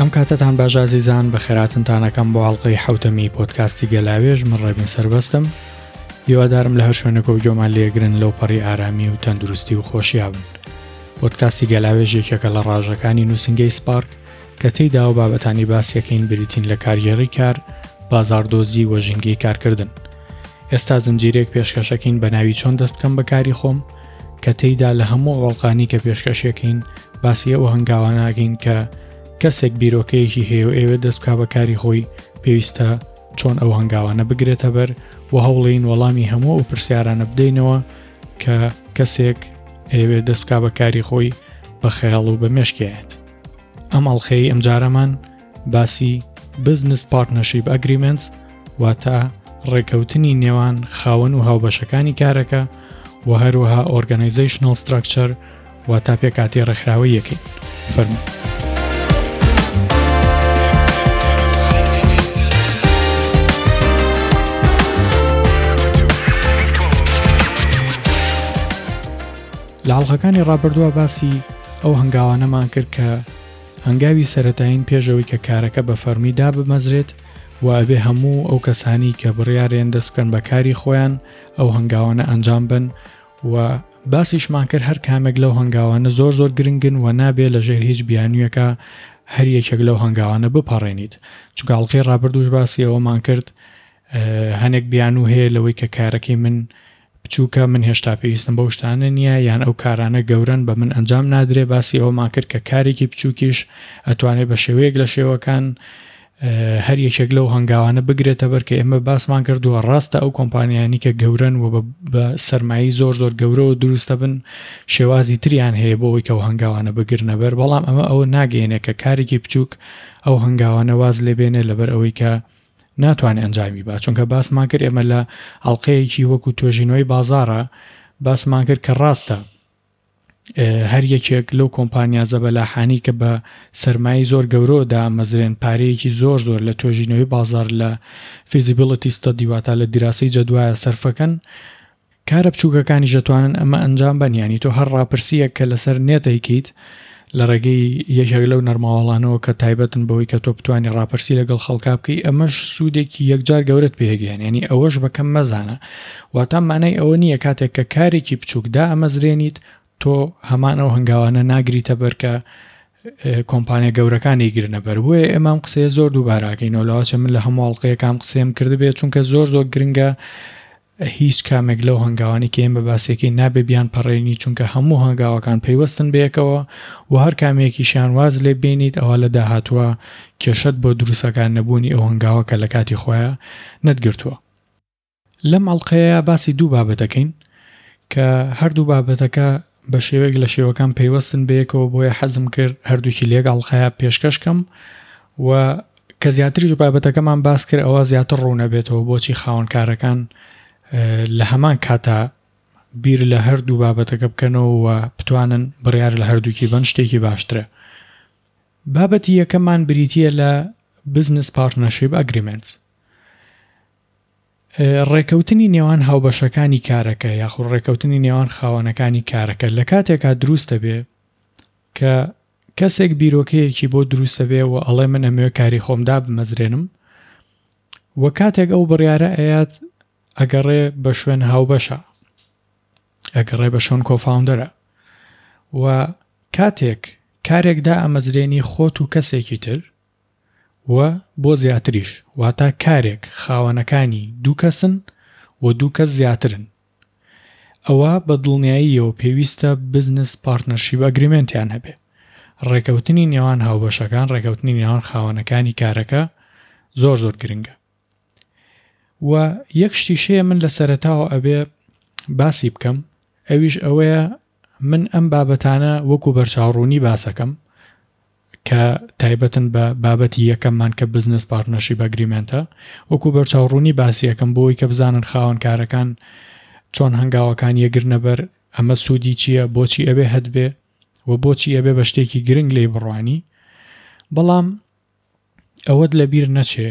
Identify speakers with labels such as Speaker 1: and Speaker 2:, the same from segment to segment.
Speaker 1: ئەم کاتەتان باش ئازیزان، بەخێراتنتان ئەکەم بۆ ئەڵقەی حەوتەمی پۆدکاستی گەلاوێژ، من ڕێبین سەربەستم. هیوادارم لە هەر شوێنێکەوە گوێمان لێگرن لەو پەڕی ئارامی و تەندروستی و خۆشیا بن. پۆدکاستی گەلاوێژ یەکێکە لە ڕاژەکانی نووسینگەی سپارک کە تێیدا و بابەتانی باسیەکەین بریتین لە کارگێڕی کار، بازاڕدۆزی و ژینگەی کارکردن. ئێستا زنجیرەیەک پێشکەشەکەین بە ناوی چۆن دەست بکەم بە کاری خۆم کە تێیدا لە هەموو ئەوڵقانی کە پێشکەشەکەین باسی ئەو هەنگاواناگەین کە کەسێک بیرۆکەیەکی هەیە و ئەوێت دەست بکا بە کاری خۆی پێویستە چۆن ئەو هەنگاوانە بگرێتە بەر و هەوڵین وەڵامی هەموو ئەو پرسیارانە بدەینەوە کە کەسێک ئەیەوێت دەست بکا بە کاری خۆی بە خەیاڵ و بە مێشکیایەت. ئەم ئەڵلقەی ئەمجارەمان باسی Business Partnership Agreements واتە ڕێکەوتنی نێوان خاوەن و هاوبەشەکانی کارەکە و هەروەها Organizational Structure واتە پێکاتی ڕێکخراوەیەکەین فەرموو. لە ئەڵقەکانی ڕابردووە باسی ئەو هەنگاوانەمان کرد کە هەنگاوی سەرەتایین پێش ئەوەی کە کارەکە بە فەرمی دابمەزرێت و ئەبێ هەموو ئەو کەسانی کە بڕیارێن دەست بکەن بە کاری خۆیان ئەو هەنگاوانە ئەنجام بن و باسیشمان کرد هەر کامێک لەو هەنگاوانە زۆر زۆر گرنگن و نابێ لە ژێر هیچ بیانوویەکە هەر یەکێک لەو هەنگاوانە بپەڕێنیت چونکە ئەڵقەی ڕابردووش باسی ئەوەمان کرد هەنێک بیانوو هەیە لەوەی کە کارەکەی من بچووکە من هێشتا پێویستم بەو شتانە نییە یان ئەو کارانە گەورەن بە من ئەنجام نادرێ باسی ئەوەمان کرد کە کارێکی بچووکیش ئەتوانێت بە شێوەیەک لە شێوەکان هەر یەکێک لەو هەنگاوانە بگرێتە بەر کە ئێمە باسمان کردووە ڕاستە ئەو کۆمپانیانی کە گەورەن و بە سەرمایی زۆر زۆر گەورەوە دروستە بن شێوازی تریان هەیە بۆ ئەوەی کە ئەو هەنگاوانە بگرنە بەر بەڵام ئەمە ئەوە ناگەیەنێ کە کارێکی بچووک ئەو هەنگاوانە واز لێبێنێ لەبەر ئەوەی کە ناتوانێت ئەنجامی با چونکە باسمان کرد ئێمە لە ئەڵلقەیەکی وەکو توێژینەوەی بازارە باسمان کرد کە ڕاستە هەر یەکێک لەو کۆمپانیا زەبەلاحانی کە بە سەرمایی زۆر گەورەوە دامەزرێن پارەیەکی زۆر زۆر لە توێژینەوەی بازار لە feasibility study واتە لە دیراسەی جەدوایە سەرفەکەن کارە بچووکەکانیش دەتوانن ئەمە ئەنجام بەن یانی تۆ هەر ڕاپرسییەک کە لەسەر نێت ئەیکەیت لە ڕێگەی یەکێک لەو نەرماوەڵانەوە کە تایبەتن بەوەی کە تۆ بتانی ڕاپرسی لەگەڵ خەڵکا بکەی ئەمەش سوودێکی یەکجار گەورەت پێگەیان ینی ئەوەش بەکەم مەزانە واتا مانای ئەوە نییە کاتێک کە کارێکی بچووک دائەمەزرێنیت تۆ هەمان ئەو هەنگاوانە ناگریتە بەر کە کۆمپانیا گەورەکان ئەیگرنە بەر بۆیە ئێمە ئەم قسەیە زۆر دووباراکەینەوە لەوەچە من لە هەموو ئەڵقەیەکان قسەیم کردبێت چونکە زۆر زۆر گرنگە هیچ کامێک لەو هەنگاوانەی کە ئێمە باسیەکەین نابێ بیان پەڕێنی چونکە هەموو هەنگاوەکان پەیوەستن بەیەکەوە و هەر کامێکیشیان واز لێ بێنیت ئەوا لە داهاتووە کێشەت بۆ دروستەکان نەبوونی ئەو هەنگاوە کە لە کاتی خۆیا نەتگرتووە. لەم ئەڵقەیە باسی دوو بابەت دەکەین کە هەردوو بابەتەکە بە شێوەیەک لە شێوەکان پەیوەستن بەیەکەوە بۆیە حەزم کرد هەردووکی لە یەک ئەڵقەیا پێشکەش کەم و کە زیاتریش بابەتەکەمان باس کرد ئەوە زیاتر ڕوونەبێتەوە بۆچی خاوەنکارەکان لە هەمان کاتا بیر لە هەردوو بابەتەکە بکەنەوە و بتوانن بڕیار لە هەردووکی بن شتێکی باشترە. بابەتی یەکەمان بریتییە لە Business Partnership Agreements. ڕێکەوتنی نێوان هاوبەشەکانی کارەکە یاخود ڕێکەوتنی نێوان خاوەنەکانی کارەکە لە کاتێکا دروست دەبێ کە کەسێک بیرۆکەیەکی بۆ دروست دەبێ و ئەڵێ من ئەمەوێ کاری خۆم دابمەزرێنم و کاتێک ئەو بڕیارە ئەیات ئەگەڕێ بە شوێن هاوبەشە ئەگەڕێ بە شوێن کۆفاوندەرە و کاتێک کارێک دائەمەزرێنی خۆت و کەسێکی تر و بۆ زیاتریش واتا کارێک خاوەنەکانی دوو کەسن و دوو کەس زیاترن ئەوا بە دڵنیاییەوە پێویستە بزنس پارتنەرشیپ ئەگریمێنتیان هەبێ. ڕێکەوتنی نێوان هاوبەشەکان، ڕێکەوتنی نێوان خاوەنەکانی کارەکە زۆر زۆر گرنگە. و یەک شتیش هەیە من لە سەرەتاوە ئەبێ باسی بکەم ئەویش ئەوەیە من ئەم بابەتانە وەکو بەرچاوڕوونی باسەکەم کە تایبەتن بە بابەتی یەکەممان کە بزنس پارتنەرشیپ ئەگریمێنتە وەکو بەرچاوڕوونی باسی ئەکەم بۆی کە بزانن خاوەن کارەکان چۆن هەنگاوەکان یەگرنە بەر ئەمە سوودی چییە بۆچی ئەبێ هەتبێ و بۆچی ئەبێ بە شتێکی گرنگ لێی بڕوانی بەڵام ئەوەت لەبیر نەچێ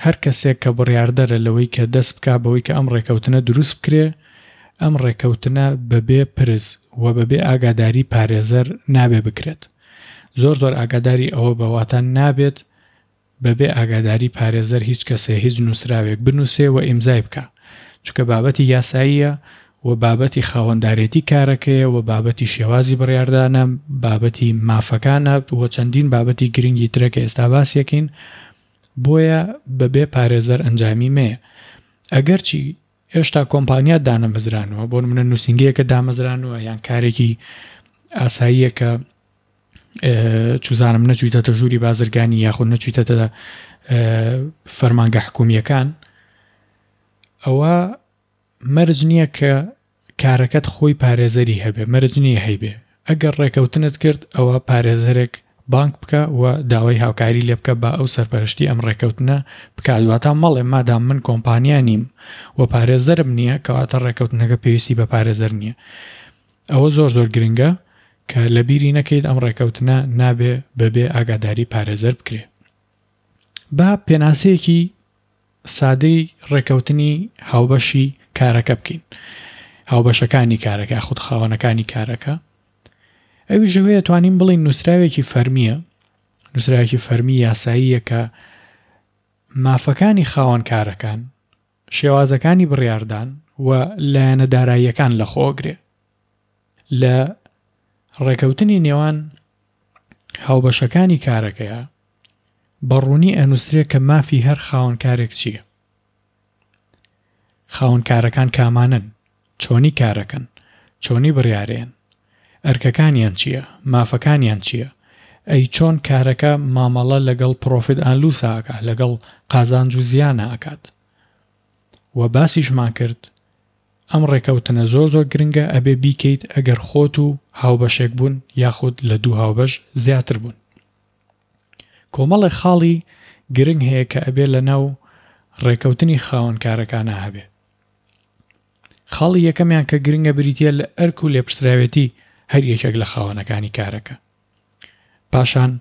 Speaker 1: هەر کەسێک کە بڕیاردەرە لەوەی کە دەست بکا بەوەی کە ئەم ڕێکەوتنە دروست بکرێ، ئەم ڕێکەوتنە بەبێ پرس و بەبێ ئاگاداری پارێزەر نابێ بکرێت. زۆر زۆر ئاگاداری ئەوە بە واتە نابێت بەبێ ئاگاداری پارێزەر هیچ کەسێ هیچ نووسراوێک بنووسێ و ئیمزای بکا چونکە بابەتی یاساییە و بابەتی خاوەندارێتی کارەکەیە و بابەتی شێوازی بڕیاردانە بابەتی مافەکانە و چەندین بابەتی گرنگی ترە کە ئێستا باسیەکەین بۆیە بەبێ پارێزەر ئەنجامی مەیە ئەگەرچی هێشتا کۆمپانیا دانەمەزرانوە بۆ نمونە نووسینگەیەکە دامەزرانوە یان کارێکی ئاساییە کە چوزانم نەچویتەتە ژووری بازرگانی یاخود نەچویتەتە فەرمانگە حکومیەکان ئەوە مەرج نییە کە کارەکەت خۆی پارێزەری هەبێ مەرج نییە هەیبێ ئەگەر ڕێکەوتنت کرد ئەوە پارێزەرێک بانگ بکە و داوای هاوکاری لێ بکە با ئەو سەرپەرشتی ئەم ڕێکەوتنە بکات واتا مەڵێ مادام من کۆمپانیا نیم و پارێزەرم نییە کەواتە ڕێکەوتنەکە پێویستی بە پارێزەر نییە ئەوە زۆر زۆر گرنگە کە لەبیری نەکەیت ئەم ڕێکەوتنە نابێ بەبێ ئاگاداری پارێزەر بکرێ. با پێناسەیەکی سادەی ڕێکەوتنی هاوبەشی کارەکە بکەین. هاوبەشەکانی کارەکە یاخود خاوەنەکانی کارەکە. ئەویش ئەوەیە توانین بڵێین نووسراوێکی فەرمییە، نووسراوێکی فەرمی یاساییە کە مافەکانی خاوەن کارەکان، شێوازەکانی بڕیاردان و لایەنە داراییەکان لەخۆگرێ. لە ڕێکەوتنی نێوان هاوبەشەکانی کارەکەیا بە ڕوونی ئەنووسرێ کە مافی هەر خاوەنکارێک چییە. خاوەنکارەکان کامانەن، چۆنی کارەکەن، چۆنی بڕیارەیەن، ئەرکەکانیان چییە، مافەکانیان چییە، ئەی چۆن کارەکە مامەڵە لەگەڵ پڕۆفیت ئاند لوسا ئەکا، لەگەڵ قازانج و زیانا ئەکات. وە باسیشمان کرد ئەم ڕێکەوتنە زۆر زۆر گرنگە ئەبێ بیکەیت ئەگەر خۆت و هاوبەشێک بوون یاخود لە دوو هاوبەش زیاتر بوون. کۆمەڵێک خاڵی گرنگ هەیە کە ئەبێ لە ناو ڕێکەوتنی خاوەن کارەکانا هەبێ. خاڵی یەکەمیان کە گرنگە بریتیە لە ئەرک و لێپرسراوێتی هەر یەکێک لە خاوەنەکانی کارەکە. پاشان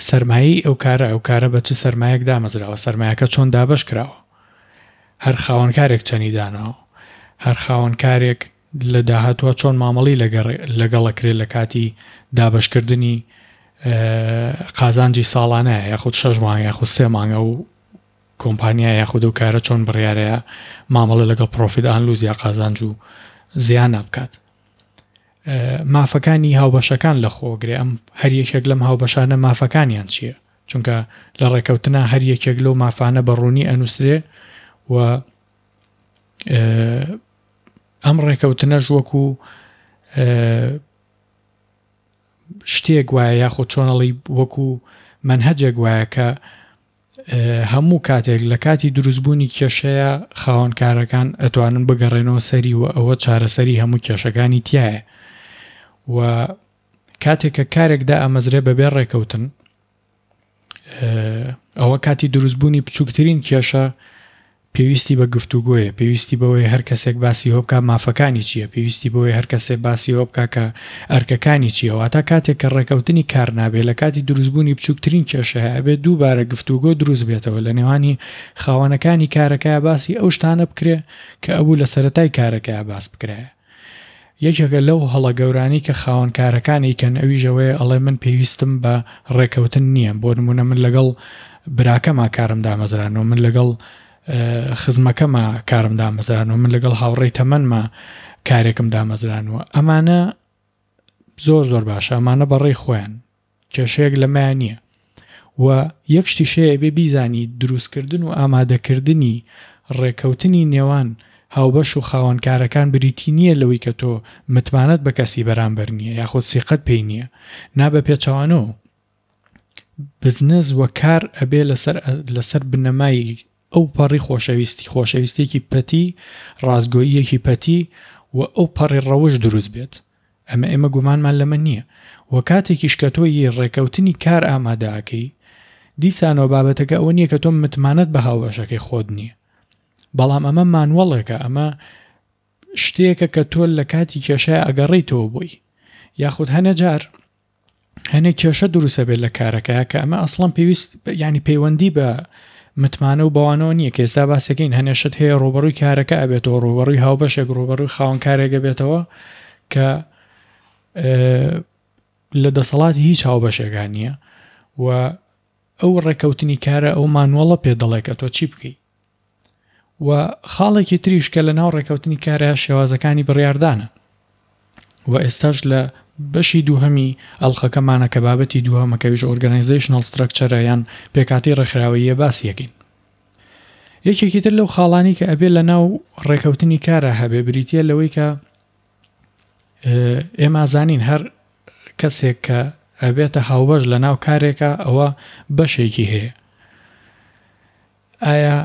Speaker 1: سەرمایەی ئەو کارە، ئەو کارە بە چ سەرمایەک دامەزراوە، سەرمایەکە چۆن دابەش کراوە، هەر خاوەنکارێک چەنی داناوە، هەر خاوەنکارێک لە داهاتووە چۆن مامەڵی لەگەڵ ئەکرێت لە کاتی دابەشکردنی قازانجی ساڵانە یاخود شەش مانگ یاخود سێ مانگ ئەو کۆمپانیا یاخود ئەو کارە چۆن بڕیارەیە مامەڵە لەگەڵ پرۆفیت ئان لوز یا قازانج و زیانە بکات. مافەکانی هاوبەشەکان لە خۆگرێ ئەم هەر یەکێک لەم هاوبەشانە مافەکانیان چییە چونکە لە ڕێکەوتنا هەر یەکێک لەو مافانە بە ڕوونی ئەنووسرێ و ئەم ڕێکەوتنەش وەکو شتێک وایە یاخود چۆنەڵی وەکو مەنهەجێک وایە کە هەموو کاتێک لە کاتی دروستبوونی کێشەیە خاوەن کارەکان ئەتوانن بگەڕێنەوە سەری و ئەوە چارەسەری هەموو کێشەکانی تایە و کاتێک کە کارێک دائەمەزرێ بەبێ ڕێکەوتن ئەوە کاتی دروستبوونی بچووکترین کێشە پێویستی بە گفتوگۆیە، پێویستی بەوەیە هەر کەسێک باسی هۆ بکا مافەکانی چییە، پێویستی بەوەیە هەر کەسێ باسی ئەوە بکا کە ئەرکەکانی چییە، واتە کاتێک کە ڕێکەوتنی کار نابێ لە کاتی دروستبوونی بچووکترین کێشە هەیە ئەبێ دووبارە گفتوگۆ دروست بێتەوە لە نێوانی خاوەنەکانی کارەکەیا باسی ئەو شتانە بکرێ کە ئەبوو لە سەرەتای کارەکەیا باس بکرایە. یەکێکە لەو هەڵە گەورانەی کە خاوەن کارەکان ئەیکەن ئەویش ئەوەیە ئەڵێ من پێویستم بە ڕێکەوتن نییە بۆ نمونە من لەگەڵ براکەما کارم دامەزرانەوە من لەگەڵ خزمەکەما کارم دامەزرانەوە من لەگەڵ هاوڕێی تەمەنما کارێکم دامەزرانەوە ئەمانە زۆر زۆر باشە ئەمانە بەڕێی خۆیان کێشەیەک لەمەیا نییە و یەک شتیش هەیە ئەبێ بیزانی دروستکردن و ئامادەکردنی ڕێکەوتنی نێوان هاوبەش و خاوەنکارەکان بریتی نییە لەوەی کە تۆ متمانەت بە کەسی بەرامبەر نییە یاخود سیقەت پێی نییە نا بە پێچەوانەوە بزنس و کار ئەبێ لەسەر لەسەر بنەمای ئەو پەڕی خۆشەویستی، خۆشەویستیەکی پەتی، ڕاستگۆییەکی پەتی و ئەو پەڕی ڕەوشت دروست بێت. ئەمە ئێمە گومانمان لەمە نییە. وە کاتێکیش کە تۆ ی ڕێکەوتنی کار ئامادە ئەکەی، دیسانەوە بابەتەکە ئەوە نییە کە تۆ متمانەت بە هاوبەشەکەی خۆت نییە. بەڵام ئەمە مانوەڵێکە، ئەمە شتێکە کە تۆ لە کاتی کێشەیا ئەگەڕێیتەوە بۆی. یاخود هەنێ جار هەنێ کێشە دروستە بێت لە کارەکە کە ئەمە ئەسڵەن پێویست ینی پەیوەندی بە متمانە و بەوانەوە نییە کە ئێستا باسەکەین هەنێ شت هەیە ڕوبەڕووی کارەکە ئەبێتەوە ڕوبەڕووی هاوبەشێک ڕوبەڕووی خاوەن کارێکە بێتەوە کە لە دەسەڵاتی هیچ هاوبەشێکا نییە و ئەو ڕێکەوتنی کارە ئەو مانوەڵە پێ دەڵێ کە تۆ چی بکەی و خاڵێکی تریش کە لە ناو ڕێکەوتنی کارە شێوازەکانی بڕیاردانە و ئێستاش لە بەشی دووهەمی ئەڵقەکەمانە کە بابەتی دووهەمە کە ئەویش ئۆرگانایزەیشنەڵ ستراکچەرە یان پێکهاتەی ڕێکخراوەییە باسی ئەکەین. یەکێکی تر لەو خاڵانەی کە ئەبێ لە ناو ڕێکەوتنی کارا هەبێ بریتییە لەوەی کە ئێمە زانین هەر کەسێک کە ئەبێتە هاوبەش لە ناو کارێکە ئەوە بەشێکی هەیە ئایا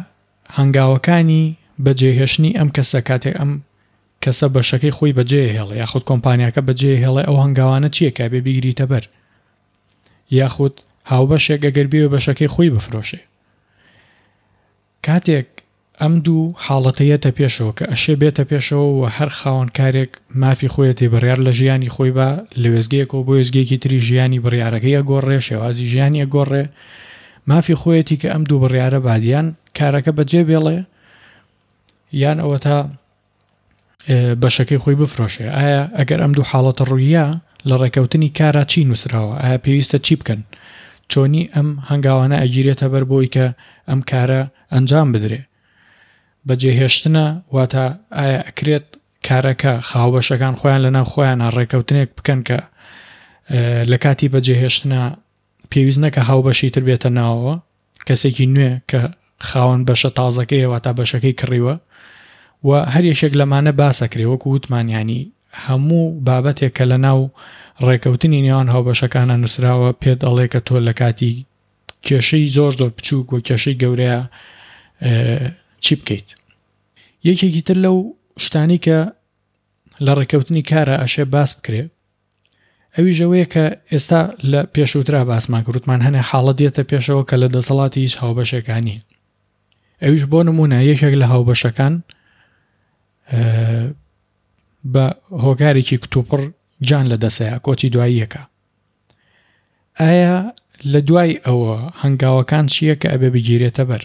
Speaker 1: هەنگاوەکانی بەجێهێشتنی ئەم کەسە کاتێک ئەم کەسە بەشەکەی خۆی بەجێ هێڵێ یاخود کۆمپانیاکە بەجێ هێڵێ ئەو هەنگاوانە چییە کە بێ بیگریتە بەر یاخود هاوبەشێک ئەگەر بێ بەشەکەی خۆی بفرۆشێ کاتێک ئەم دوو حاڵەتە یەتە پێشەوە کە ئەشێ بێتە پێشەوە و هەر خاوەن کارێک مافی خۆیەتی بڕیار لە ژیانی خۆی با لە وێستگەیەکەوە بۆ وێستگەیەکی تری ژیانی بڕیارەکەی ئەگۆڕێ شێوازی ژیانی ئەگۆڕێ مافی خۆیەتی کە ئەم دوو بڕیارە بات یان کارەکە بەجێ بێڵێ یان ئەوەتا بەشەکەی خۆی بفرۆشێ ئایا ئەگەر ئەم دوو حاڵەتە ڕوویە لە ڕێکەوتنی کارا چی نووسراوە ئایا پێویستە چی بکەن چۆنی ئەم هەنگاوانە ئەگیرێتە بەر بۆی کە ئەم کارە ئەنجام بدرێ بەجێهێشتنە واتە ئایا ئەکرێت کارەکە خاوبەشەکان خۆیان لەناو خۆیانە ڕێکەوتنێک بکەن کە لە کاتی بەجێهێشتنە پێویست نەکە هاوبەشی تر بێتە ناوەوە کەسێکی نوێ کە خاوەن بەشە تازەکەیە واتا بەشەکەی کڕیوە و هەر یەکێک لەمانە باسەکرێ وەکو وتمان ینی هەموو بابەتێک کە لە ناو ڕێکەوتنی نێوان هاوبەشەکانە نووسراوە پێت ئەڵێ کە تۆ لە کاتی کێشەی زۆر زۆر بچووک و کێشەی گەورەیە چی بکەیت یەکێکی تر لەو شتانی کە لە ڕێکەوتنی کارە ئەشێ باس بکرێ ئەویش ئەوەیە کە ئێستا لە پێشووترا باسمان کرد وتمان هەنێ حاڵەت دێتە پێشەوە کە لە دەسەڵاتی هیچ هاوبەشێکا نییە ئەویش بۆ نمونە یەکێک لە هاوبەشەکان بە هۆکارێکی کتوپڕ گیان لە دەسەیە کۆچی دواییەکە ئایا لە دوای ئەوە هەنگاوەکان چییە کە ئەبێ بگیرێتە بەر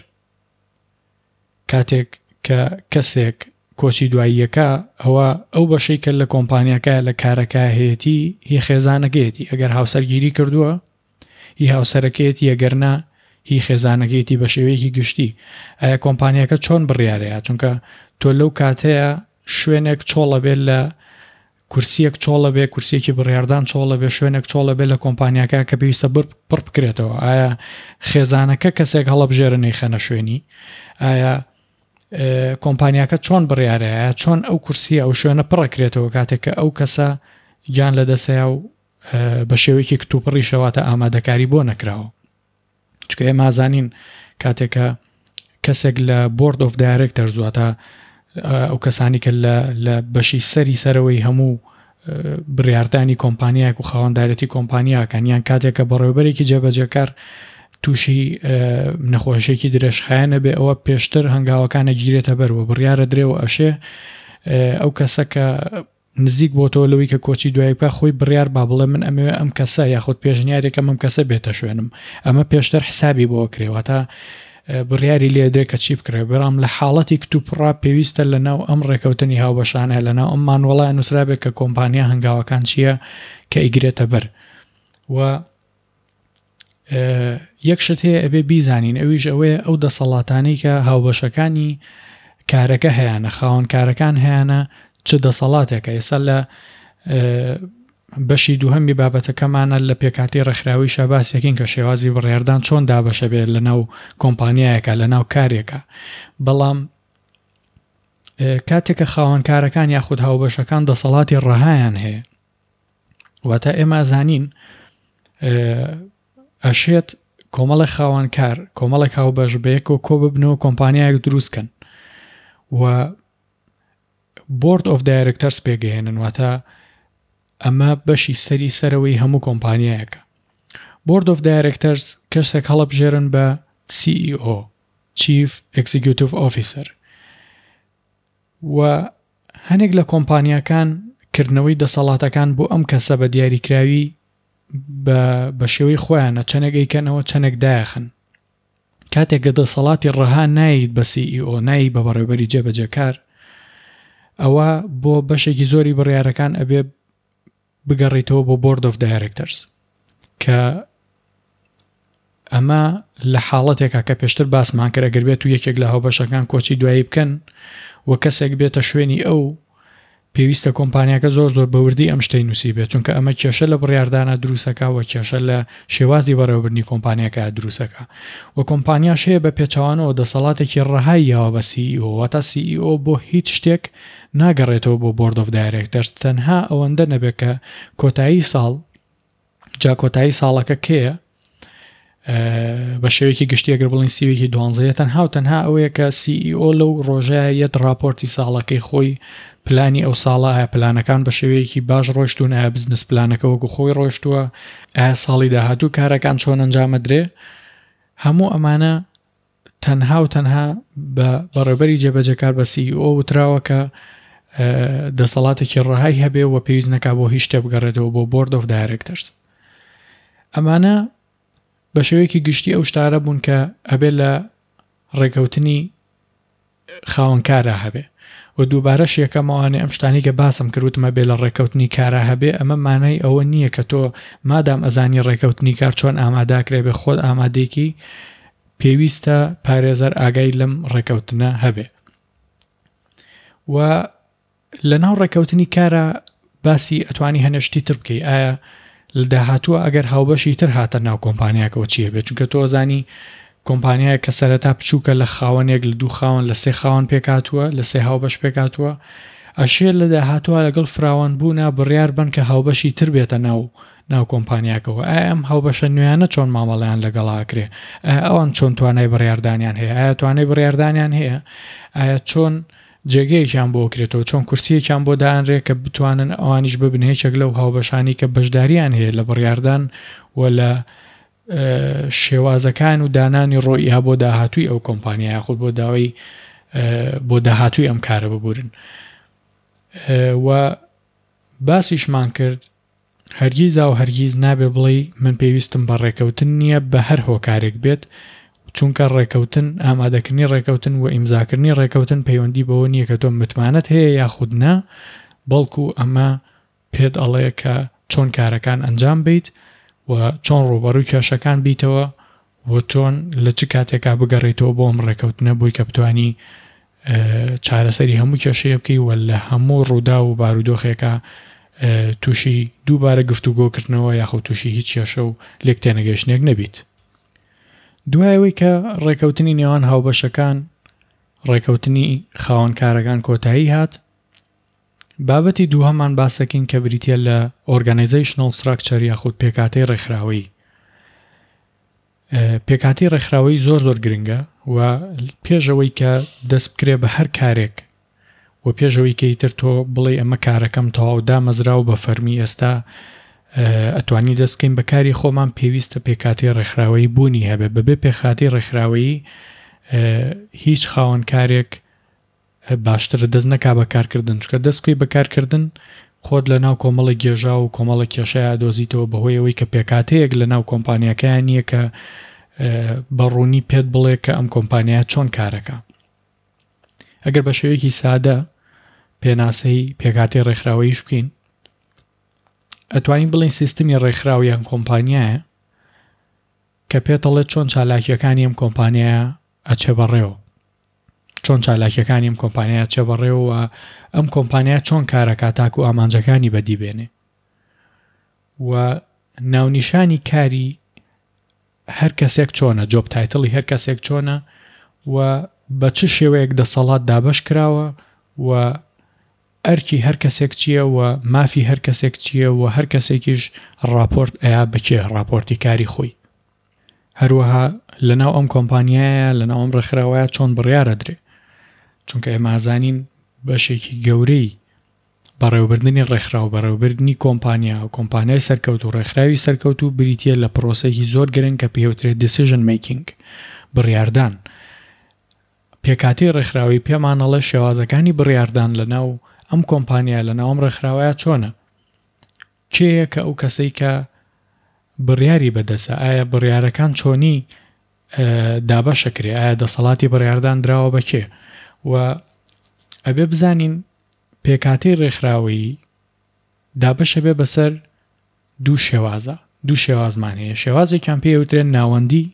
Speaker 1: کاتێک کە کەسێک کۆچی دواییەکە ئەوە ئەو بەشەی کە لە کۆمپانیاکە لە کارەکە هەیەتی هی خێزانەکەیەتی ئەگەر هاوسەرگیری کردووە هی هاوسەرەکەیەتی ئەگەر نا هی خێزانەکەیەتی بە شێوەیەکی گشتی ئایا کۆمپانیاکە چۆن بڕیارەیە چونکە تۆ لەو کاتەیە شوێنێک چۆڵە بێت لە کورسیەک چۆڵە بێ کورسیەکی بڕیاردان چۆڵە بێ شوێنێک چۆڵە بێ لە کۆمپانیاکە کە پێویستە پڕ بکرێتەوە ئایا خێزانەکە کەسێک هەڵەبژێرە نەیخەنە شوێنی ئایا کۆمپانیاکە چۆن بڕیارەیە چۆن ئەو کورسیە ئەو شوێنە پڕەکرێتەوە کاتێک کە ئەو کەسە گیان لە دەسەیە و بە شێوەیەکی کتوپڕی شەواتە ئامادەکاری بۆ نەکراوە چونکە ئێمە ئازانین کاتێک کە کەسێک لە بۆرد ئۆف دایرێکتەرز واتە ئەو کەسانی کە لە بەشی سەری سەرەوەی هەموو بڕاردانی کۆمپانیایەک و خاوەندارێتی کۆمپانیاکان یان کاتێک کە بەڕێوبەرێکی جێبەجێکار تووشی نەخۆشیێکی درێژخایەنە بێ ئەوە پێشتر هەنگاوەکانە گیرێتە بەرەوە بڕیارە درێەوە ئەشێ ئەو کەسە کە نزیک بۆتەوە لەوەی کە کۆچی دوایی بکات خۆی بڕیار با بڵێ من ئەمەوێ ئەم کەسە یاخود پێشنیارێکم ئەم کەسە بێتە شوێنم ئەمە پێشتر حسابی بۆ کرێ واتە بڕیاری لێدرێ کە چی بکرێ بەڵام لە حاڵەتی کتوپڕا پێویستە لە ناو ئەم ڕێکەوتنی هاوبەشانە لە ناو ئەم مانوەڵە نووسرابێت کە کۆمپانیا هەنگاوەکان چییە کە ئیگرێتە بەر و یەک شت هەیە ئەبێ بیزانین ئەویش ئەوەیە ئەو دەسەڵاتانەی کە هاوبەشەکانی کارەکە هەیەە خاوەن کارەکان هەیەە چ دەسەڵاتێکە ئێستا لە بەشی دووهەمی بابەتەکەمانە لە پێکاتی ڕێکخراوی شاباسێکین کە شێوازی بڕیاردان چۆن دابەشە بێت لە ناو کۆمپانیایەکە لە ناو کارێکە بەڵام کاتێکە خاوەنکارەکان یاخود هاوبەشەکان دەسەڵاتی ڕەهایان هەیە واتە ئێمە ئەزانین ئەشێت کۆمەڵێک خاوەنکار کۆمەڵێک هاوبەش بەیەکەوە کۆ ببنەوە کۆمپانیایەک دروست کەن و بۆرد ئۆف دایرکتەرس پێگەێنن واتە ئەمە بەشی سەری سەرەوەی هەموو کۆمپانیایەکە بۆرد ئۆف دایرکتەرز کەسێک هەڵبژێرن بە CEO Chief Executive Officer و هەنێک لە کۆمپانیاکان کردنەوەی دەسەڵاتەکان بۆ ئەم کەسە بە دیاریکراوی بە بە شێوەی خۆیانە چەنێک ئەیکەنەوە چەنێک دایەخن. کاتێک کە دەسەڵاتی ڕەها نایەیت بە CEO نایەی بە بەڕێوبەری جێبەجێکار ئەوە بۆ بەشێکی زۆری بڕیارەکان ئەبێ. بگەڕیتەوە بۆ بۆرد ئۆف دایرێکتەرز کە ئەمە لە حاڵەتێکا کە پێشتر باسمان کرد ئەگەر بێت و یەکێک لە هاوبەشەکان کۆچی دوایی بکەن و کەسێک بێتە شوێنی ئەو پێویستە کۆمپانیاکە زۆر زۆر بەوردی ئەم شتەی نووسی بێت چونکە ئەمە کێشە لە بڕیاردانە دروستەکە و کێشە لە شێوازی بەڕێوەبردنی کۆمپانیاکە دروستەکە و کۆمپانیاش هەیە بە پێچەوانەوە دەسەڵاتێکی ڕەهای یاوە بە CEO واتە CEO بۆ هیچ شتێک ناگەڕێتەوە بۆ بۆرد ئۆف دایرێکتەرز تەنها ئەوەندە نەبێت کە کۆتایی ساڵ جا کۆتایی ساڵەکە کێیە بە شێوەیەکی گشتی ئەگەر بڵین سیوێکی دوانزەیە تەنها و تەنها ئەوەیە کە CEO لەو ڕۆژەیە یەت راپۆرتی ساڵەکەی خۆی پلانی ئەو ساڵە ئایا پلانەکان بە شێوەیەکی باش ڕۆشتون ئایا بزنس پلانەکە وەکو خۆی ڕۆشتووە ئایا ساڵی داهاتوو کارەکان چۆن ئەنجامەدرێ هەموو ئەمانە تەنها و تەنها بە بەڕێوبەری جێبەجێکار بە CEO وتراوە کە دەسەڵاتێکی ڕەهای هەبێ و پێویست نەکا بۆ هیچ شتێ بگەڕێتەوە بۆ بۆرد ئۆف دایرێکتەرز. ئەمانە بە شێوەیەکی گشتی ئەو شتارە بوون کە ئەبێ لە ڕێکەوتنی خاوەنکارا هەبێ و دووبارەش یەکەم ئەوانەی ئەم شتانەی کە باسم کرد وتم ئەبێ لە ڕێکەوتنی کارا هەبێ ئەمە مانای ئەوە نییە کە تۆ مادام ئەزانی ڕێکەوتنی کار چۆن ئاماداکرێ بێ خۆت ئامادەیکی پێویستە پارێزەر ئاگای لەم ڕێکەوتنە هەبێ و لەناو ڕێکەوتنی کارا باسی ئەتوانی هەنێ شتی تر بکەی ئایا لە داهاتووە ئەگەر هاوبەشی تر هاتە ناو کۆمپانیاکەوە چیە بێت چونکە تۆ ئەزانی کۆمپانیایە کە سەرەتا بچووکە لە خاوەنێک لە دوو خاوەن لە سێ خاوەن پێکهاتووە لە سێ هاوبەش پێکهاتووە ئەشێ لە داهاتووە لەگەڵ فراوان بوونا بڕیار بن کە هاوبەشی تر بێتە ناو ناو کۆمپانیاکەوە ئایا ئەم هاوبەشە نوێیانە چۆن مامەڵەیان لەگەڵا ئەکرێ ئایا ئەوان چۆن توانای بڕیاردانیان هەیە ئایا توانای بڕیاردانیان هەیە ئایا چۆن جێگەیەکیان بۆ کرێتەوە، چۆن کورسییەکیان بۆ دائەنرێ کە بتوانن ئەوانیش ببنە یەکێک لەو هاوبەشانەی کە بەشدارییان هەیە لە بڕیاردان و لە شێوازەکان و دانانی ڕۆئیا بۆ داهاتووی ئەو کۆمپانیا یاخود بۆ داوای بۆ داهاتووی ئەم کارە ببورن و باسیشمان کرد هەرگیزاو هەرگیز نابێ بڵێی من پێویستم بە ڕێکەوتن نییە بە هەر هۆکارێک بێت، چونکە ڕێکەوتن، ئامادەکردنی ڕێکەوتن و ئیمزاکردنی ڕێکەوتن پەیوەندی بەوە نییە کە تۆ متمانەت هەیە یاخود نا، بەڵکو ئەمە پێت ئەڵێ کە چۆن کارەکان ئەنجام بەیت و چۆن ڕووبەڕووی کێشەکان بیتەوە و چۆن لە چ کاتێکا بگەڕێیتەوە بۆ ئەم ڕێکەوتنە بۆی کە بتوانی چارەسەری هەموو کێشەیە بکەی و لە هەموو ڕووداو و بارودۆخێکا تووشی دووبارە گفتوگۆکردنەوە یاخود تووشی هیچ کێشە و لێک تێنەگەیشتنێک نەبیت. دوای ئەوەی کە ڕێکەوتنی نێوان هاوبەشەکان ڕێکەوتنی خاوەنکارەکان کۆتایی هات، بابەتی دووهەمان باسەکەین کە بریتیە لە Organizational Structure یاخود پێکهاتەی ڕێکخراوەیی. پێکهاتەی ڕێکخراوەیی زۆر زۆر گرنگە و پێش ئەوەی کە دەست بکرێ بە هەر کارێک و پێش ئەوەی کە ئیتر تۆ بڵێ ئەمە کارەکەم تەواو دامەزرا و بە فەرمی ئێستا ئەتوانی دەست بکەین بە کاری خۆمان پێویستە پێکهاتەی ڕێکخراوەیی بوونی هەبێ بەبێ پێکهاتەی ڕێکخراوەیی هیچ خاوەن کارێک باشترە دەست نەکا بە کارکردن چونکە دەست بکەی بە کارکردن خۆت لە ناو کۆمەڵێک گێژاو و کۆمەڵێک کێشەیا دۆزیتەوە بەهۆی ئەوەی کە پێکهاتەیەک لە ناو کۆمپانیاکەیان نییە کە بە ڕوونی پێت بڵێ کە ئەم کۆمپانیا چۆن کارەکە ئەگەر بە شێوەیەکی سادە پێناسەی پێکهاتەی ڕێکخراوەیش بکەین ئەتوانین بڵێین سیستمی ڕێکخراو یان کۆمپانیایە کە پێتەڵێت چۆن چالاکیەکانی ئەم کۆمپانیایە ئەچێ بەڕێوە چۆن چالاکیەکانی ئەم کۆمپانیایە چێ بەڕێوە و ئەم کۆمپانیا چۆن کارەکات تاکو ئامانجەکانی بەدی بێنێ و ناونیشانی کاری هەر کەسێک چۆنە جۆب تایتڵی هەر کەسێک چۆنە و بە چ شێوەیەک دەسەڵات دابەش کراوە و ئەرکی هەر کەسێک چییە و مافی هەر کەسێک چییە و هەر کەسێکیش ڕاپۆرت ئەیا بەکێ ڕاپۆرتی کاری خۆی هەروەها لەناو ئەم کۆمپانیایە لەناو ئەم ڕێکخراوەیە چۆن بڕیار ئەدرێ چونکە ئێمە ئازانین بەشێکی گەورەی بەڕێوەبردنی ڕێکخراو بەڕێوەبردنی کۆمپانیا و کۆمپانیای سەرکەوت و ڕێکخراوی سەرکەوت و بریتە لە پرۆسێکی زۆر گرنگ کە پێوترێت decision making بڕیاردان پێکهاتەی ڕێکخراوەی پێمان ئەڵێ شێوازەکانی بڕیاردان لەناو ئەم کۆمپانیا لەناو ئەم ڕێکخراوەیە چۆنە کێیە کە ئەو کەسەی کە بڕیاری بەدەستە؟ ئایا بڕیارەکان چۆنی دابەشەکرێ؟ ئایا دەسەڵاتی بڕیاردان دراوە بە کێ؟ و ئەبێ بزانین پێکهاتەی ڕێکخراوەیی. دابەشەبێ بەسەر دوو شێوازە دوو شێوازمان هەیە شێوازێکیان پێ وترێن ناوەندی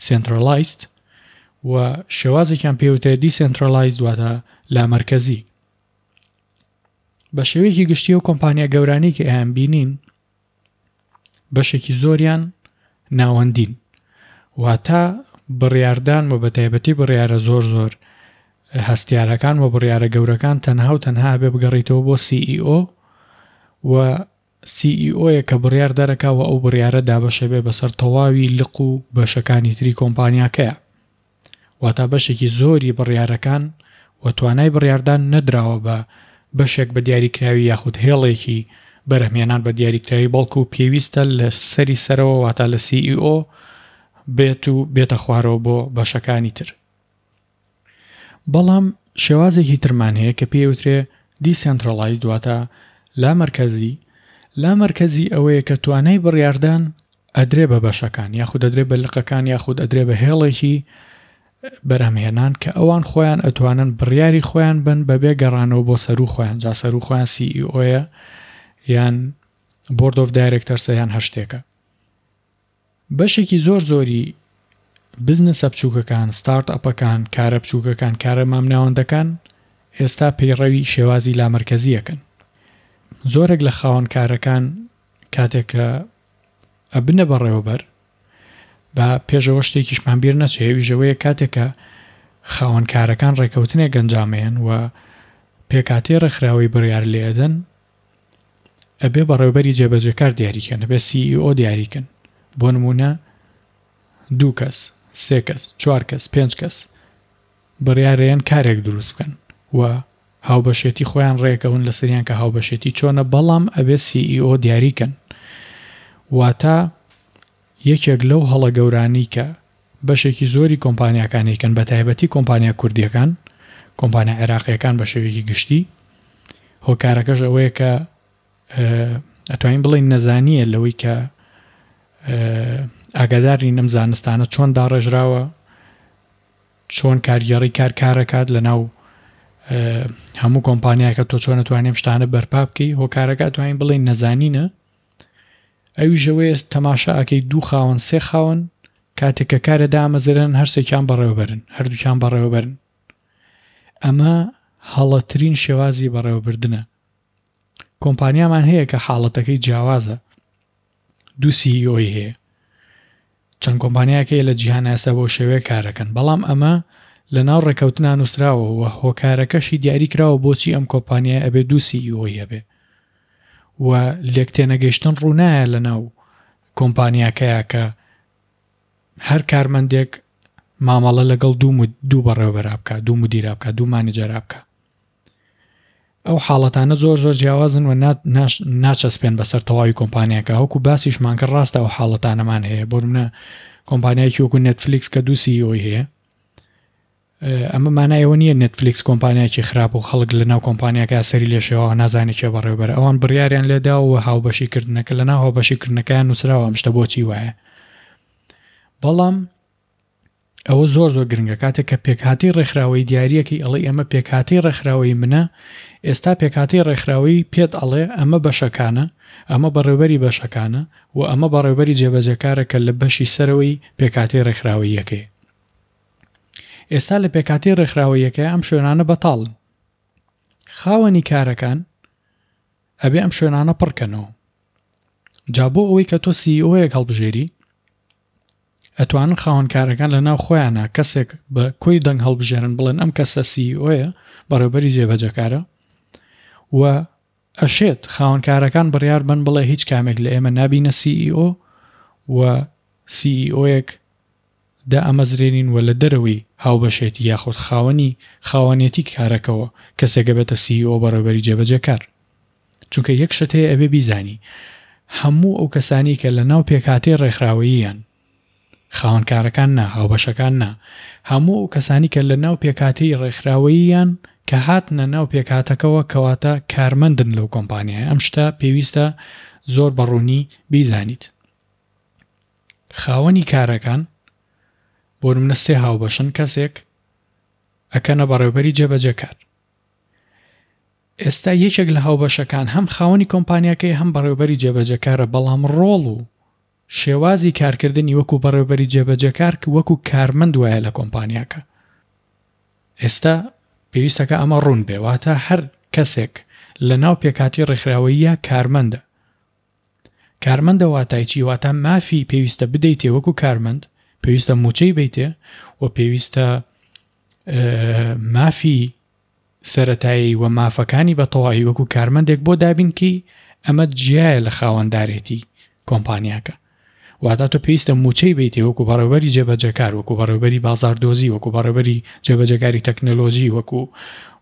Speaker 1: Centralized و شێوازێکیان پێ وترێت Decentralized واتە لامەرکەزی بە شێوەیەکی گشتی و کۆمپانیا گەورانی کە ئەیان بینین بەشێکی زۆریان ناوەندین واتە بڕیاردان و بە تایبەتی بڕیارە زۆر زۆر هەستیارەکان و بڕیارە گەورەکان تەنها و تەنها بێ بگەڕیتەوە بۆ CEO و CEO یە کە بڕیار دەرەکا و ئەو بڕیارە دابەشەبێ بەسەر تەواوی لق و بەشەکانی تری کۆمپانیاکەیا. واتا بەشێکی زۆری بڕیارەکان و توانای بڕیاردان نەدراوە بە بەشێک بە دیاریکراوی یاخود هێڵێکی بەرهەمهێنان بە دیاریکراوی بەڵکو پێویستە لە سەری سەرەوە واتا لە CEO بێت و بێتە خوارەوە بۆ بەشەکانی تر. بەڵام شێوازێکی ترمان هەیە کە پێی ئەوترێ Decentralized واتە لامەرکەزی، لامەرکەزی ئەوەیە کە توانای بڕیاردان ئەدرێ بە بەشەکان یاخود ئەدرێ بە لقەکان یاخود ئەدرێ بە هێڵێکی بەرهەمهێنان کە ئەوان خۆیان ئەتوانن بڕیاری خۆیان بن بەبێ گەڕانەوە بۆ سەروو خۆیان جا سەروو خۆیان CEO یە یان Board of Directors یان هەر شتێکە. بەشێکی زۆر زۆری بزنسە بچووکەکان، ستارت ئەپەکان، کارە بچووکەکان، کارە مامناوەندەکان ئێستا پەیڕەوی شێوازی لامەرکەزی ئەکەن. زۆرێک لە خاوەن کارەکان کاتێک کە ئەبنە بەڕێوەبەر، با پێش ئەوە شتێکیشمان بیر نەچێ ئەویش ئەوەیە کاتێک کە خاوەن کارەکان ڕێکەوتنێک ئەنجامەیەن و پێکهاتەی ڕێکخراوەی بڕیار لێ ئەدەن، ئەبێ بەڕێوبەری جێبەجێکار دیاری کەن ئەبێ CEO دیاری کەن بۆ نمونە دوو کەس سێ کەس چوار کەس پێنج کەس بڕیارەیەن کارێک دروست بکەن و هاوبەشێتی خۆیان ڕێکەون لەسەریان کە هاوبەشێتی چۆنە بەڵام ئەبێ CEO دیاری کەن واتە یەکێک لەو هەڵە گەورانی کە بەشێکی زۆری کۆمپانیاکان ئەیکەن بەتایبەتی کۆمپانیا کوردیەکان کۆمپانیا عێراقیەکان بە شێوەیەکی گشتی هۆکارەکەش ئەوەیە کە ئەتوانین بڵێین نەزانیە لەوەی کە ئاگادار نین ئەم زانستانە چۆن داڕێژراوە چۆن کارگێڕی کار کارەکات لە ناو هەموو کۆمپانیاکە تۆ چۆن توانیم شتانە بەرپا بکەی هۆکارەکە توانین بڵێین نەزانینە ئەویش ئەوەیە تەماشا ئەکەی دوو خاوەن سێ خاوەن کاتێک کە کارە دامەزرێنن هەرسێکیان بەڕێوەبەرن هەردووکیان بەڕێوەبەرن ئەمە هەڵەترین شێوازی بەڕێوەبردنە کۆمپانیامان هەیە کە حاڵەتەکەی جیاوازە دوو سیئۆی هەیە چەند کۆمپانیایەک هەیە لە جیهان ئێستا بەو شێوەیە کارەکەن بەڵام ئەمە لە ناو ڕێکەوتنا نووسراوە و هۆکارەکەشی دیاری کراوە بۆچی ئەم کۆمپانیای ئەبێ دوو سیئۆی هەبێ و لێکتێنەگەیشتن ڕوونایە لە ناو کۆمپانیاکەیا کە هەر کارمەندێک مامەڵە لەگەڵ دوو دوو بەڕێوەبەرا بکە دوو مدیرا بکە دوو مانجەرا بکە ئەو حاڵەتانە زۆر زۆر جیاوازن و ناچەسپێن بەسەر تەواوی کۆمپانیاکە وەکو باسیشمان کرد ڕاستە ئەو حاڵەتانەمان هەیە بۆ منە کۆمپانیایکی وەکو نێتفلیکس کە دوو سیۆی هەیە ئەمە مانای ئەوە نییە نێتفلیکس کۆمپانیایکی خراپ و خەڵک لە ناو کۆمپانیاکە سەری لێشێوە نازانێت کێ بەڕێوبەر ئەوان بڕیاریان لێدا و هاوبەشیکردنەکە لە ناو هاوبەشیکردنەکەیان نووسراوە ئەم شتە بۆچی وایە بەڵام ئەوە زۆر زۆر گرنگە کاتێک کە پێکهاتەی ڕێکخراوەی دیاریەکەی ئەڵێ ئەمە پێکهاتەی ڕێکخراوەی منە ئێستا پێکهاتەی ڕێکخراوەی پێت ئەڵێ ئەمە بەشەکانە ئەمە بەڕێوبەری بەشەکانە و ئەمە بەڕێوبەری جێبەجێکارە کە لە بەشی سەرەوەی پێکهاتەی ڕێکخراوەییەکەی ئێستا لە پێکهاتەی ڕێکخراوەییەکەی ئەم شوێنانە بەتاڵن خاوەنی کارەکان ئەبێ ئەم شوێنانە پڕکەنەوە جا بۆ ئەوەی کە تۆ سیئۆیەک هەڵبژێری ئەتوانن خاوەن کارەکان لە ناو خۆیانە کەسێک بە کۆی دەنگ هەڵبژێرن بڵێن ئەم کەسە سیئۆیە بەڕێوبەری جێبەجەکارە و ئەشێت خاوەن کارەکان بڕیار بن بڵێ هیچ کامێک لە ئێمە نابینە سیئۆ و سیئۆیەک دائەمەزرێنین و لە دەرەوەی هاوبەشێتی یاخود خاوەنی خاوەنێتی کارەکەوە کەسێک ئەبێتە CEO بەڕێوبەری جێبەجێکار. چونکە یەک شت هەیە ئەبێ بیزانی هەموو ئەو کەسانی کە لە ناو پێکهاتەی ڕێکخراوەییان خاوەن کارەکان نا هاوبەشەکان نا هەموو ئەو کەسانی کە لە ناو پێکهاتەی ڕێکخراوەییان کە هاتنە ناو پێکهاتەکەوە کەواتە کارمەندن لەو کۆمپانیایە ئەم شتە پێویستە زۆر بە ڕوونی بیزانیت. خاوەنی کارەکان بۆ نمونە سێ هاوبەشن کەسێک ئەکەنە بەڕێوبەری جێبەجێکار. ئێستا یەکێک لە هاوبەشەکان هەم خاوەنی کۆمپانیاکەیە هەم بەڕێوەبەری جێبەجێکارە بەڵام ڕۆڵ و شێوازی کارکردنی وەکو بەڕێوەبەری جێبەجێکار وەکو کارمەند وایە لە کۆمپانیاکە. ئێستا پێویستەکە ئەمە ڕوون بێ واتە هەر کەسێک لە ناو پێکهاتەی ڕێکخراوەییە کارمەندە. کارمەندە واتای چی؟ واتە مافی پێویستە بدەیتێ وەکو کارمەند، پێویستە مووچەی بەیتێ و پێویستە مافی سەرەتایی و مافەکانی بە تەواوی وەکو کارمەندێک بۆ دابین کەی، ئەمە جیایە لە خاوەندارێتی کۆمپانیاکە. واتە تۆ پێویستە مووچەی بەیتێ وەکو بەڕێوەبەری جێبەجێکار، وەکو بەڕێوەبەری بازاردۆزی، وەکو بەڕێوەبەری جێبەجێکاری تەکنەلۆجی، وەکو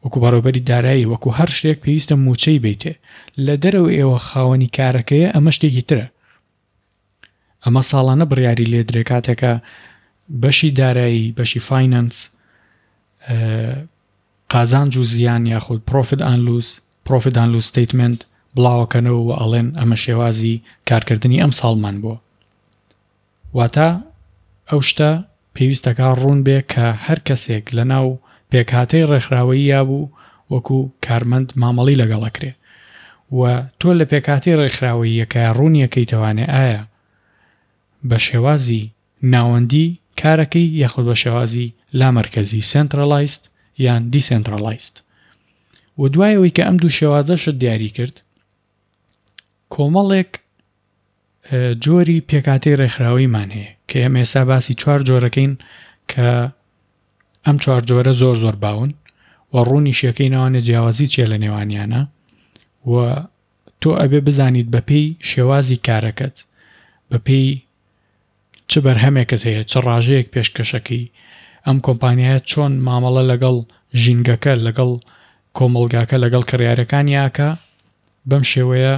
Speaker 1: وەکو بەڕێوەبەری دارایی، وەکو هەر شتێک پێویستە مووچەی بەیتێ. لە دەرەوەی ئێوە خاوەنی کارەکەیە ئەمە شتێکی ترە. ئەمە ساڵانە بڕیاری لێدرێ کاتێکە بەشی دارایی، بەشی فاینەنس، قازانج و زیان یاخود پرۆفت ئان لوس، Profit and Loss Statement، بڵاوەکەنەوە و ئەڵێن ئەمە شێوازی کارکردنی ئەم ساڵمان بووە. واتە ئەو شتە پێویستەکا ڕوون بێ کە هەر کەسێک لە ناو پێکهاتەی ڕێکخراوەییا بوو وەکو کارمەند مامەڵی لەگەڵ ئەکرێ و تۆ لە پێکهاتەی ڕێکخراوەییەکەیا ڕوونیەکەیتەوانێ ئایا بە شێوازی ناوەندی کارەکەی یاخود بە شێوازی لامەرکەزی، Centralized یان Decentralized. و دوای ئەوەی کە ئەم دوو شێوازەشت دیاری کرد کۆمەڵێک جۆری پێکهاتەی ڕێکخراوەیمان هەیە کە ئێمە ئێستا باسی چوار جۆرەکەین کە ئەم چوار جۆرە زۆر زۆر باون و ڕوونیشیەکەی ناوانێ جیاوازی چیە لە نێوانیانە و تۆ ئەبێ بزانیت بەپێی شێوازی کارەکەت بەپێی چ بەرهەمێکت هەیە چ ڕاژەیەک پێشکەشەکەی ئەم کۆمپانیایە چۆن مامەڵە لەگەڵ ژینگەکە لەگەڵ کۆمەڵگاکە لەگەڵ کڕیارەکانی ئاکا بەم شێوەیە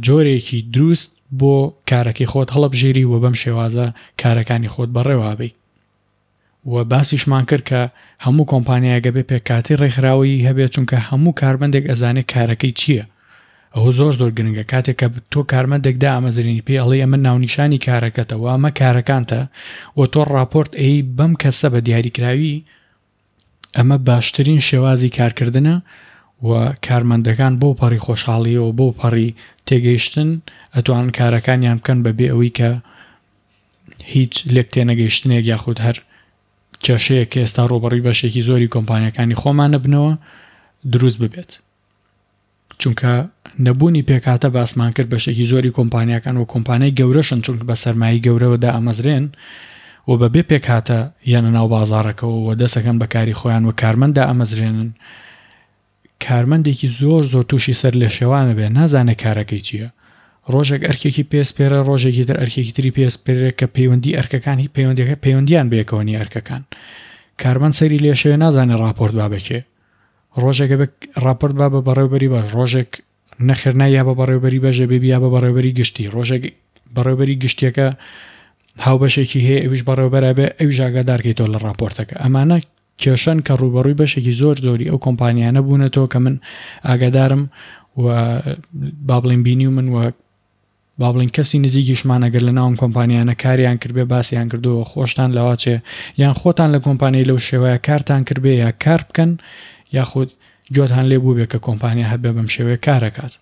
Speaker 1: جۆرێکی دروست بۆ کارەکەی خۆت هەڵبژێری و بەم شێوازە کارەکانی خۆت بەڕێوابی و باسیشمان کرد کە هەموو کۆمپانیایەک ئەبێ پێکهاتەی ڕێکخراوەیی هەبێت چونکە هەموو کارمەندێک ئەزانێت کارەکەی چییە ئەوە زۆر زۆر گرنگە کاتێک کە تۆ کارمەندێک دامەزرێنی پێی ئەڵێی ئەمە ناونیشانی کارەکەتە و ئەمە کارەکانتە و تۆ ڕاپۆرت ئەی بەم کەسە بە دیاریکراوی ئەمە باشترین شێوازی کارکردنە و کارمەندەکان بۆ پەڕی خۆشحاڵیەوە بۆ پەڕی تێگەیشتن ئەتوانن کارەکانیان بکەن بەبێ ئەوەی کە هیچ لێک تێنەگەیشتنێک یاخود هەر کێشەیەک کە ئێستا ڕووبەڕووی بەشێکی زۆری کۆمپانیاکانی خۆمانە بنەوە دروست ببێت. چونکە نەبوونی پێکهاتە باسمان کرد بەشێکی زۆری کۆمپانیاکان و کۆمپانیای گەورەشن چونکە بە سەرمایەی گەورەوە دائەمەزرێن و بەبێ پێکهاتە یەنە ناو بازاڕەکەوە و دەسەکەن بە کاری خۆیان و کارمەند دائەمەزرێنن کارمەندێکی زۆر زۆر تووشی سەر لێشێوانە بێ نازانێ کارەکەی چییە ڕۆژێک ئەرکێکی پێسپێرە ڕۆژێکی تر ئەرکێکی تری پێسپێرێ کە پەیوەندی ئەرکەکان هی پەیوەندەکە پەیوەندیان بەیەکەوە نیە ئەرکەکان کارمەند سەری لێشێوێ نازانێ ڕاپۆرت با بەکێ ڕۆژێک ئەبێ ڕاپۆرت با بە بەڕێوبەری باش ڕۆژێک نەخێر نا یا بە بەڕێوبەری بەش ئەبێ یا بە بەڕێوبەری گشتی ڕۆژێک بەڕێوبەری گشتیەکە هاوبەشێکی هەیە ئەویش بەڕێوبەر ئەبێ ئەویش ئاگادارکەیتەوە لە ڕاپۆرتەکە ئەمانە کێشەن کە ڕووبەڕووی بەشێکی زۆر زۆری ئەو کۆمپانیانە بوونەتەوە کە من ئاگادارم و با بڵێین بینیومن و با بڵێین کەسی نزیکیشمان ئەگەر لە ناو ئەم کۆمپانیانە کاریان کردبێ باسیان کردووە خۆشتان لەواچێ یان خۆتان لە کۆمپانیای لەو شێوەیە کارتان کردبێ یا کار بکەن یاخود گوێتان لێ بووبێ کە کۆمپانیا هەبێ بەم شێوەیە کارەکات.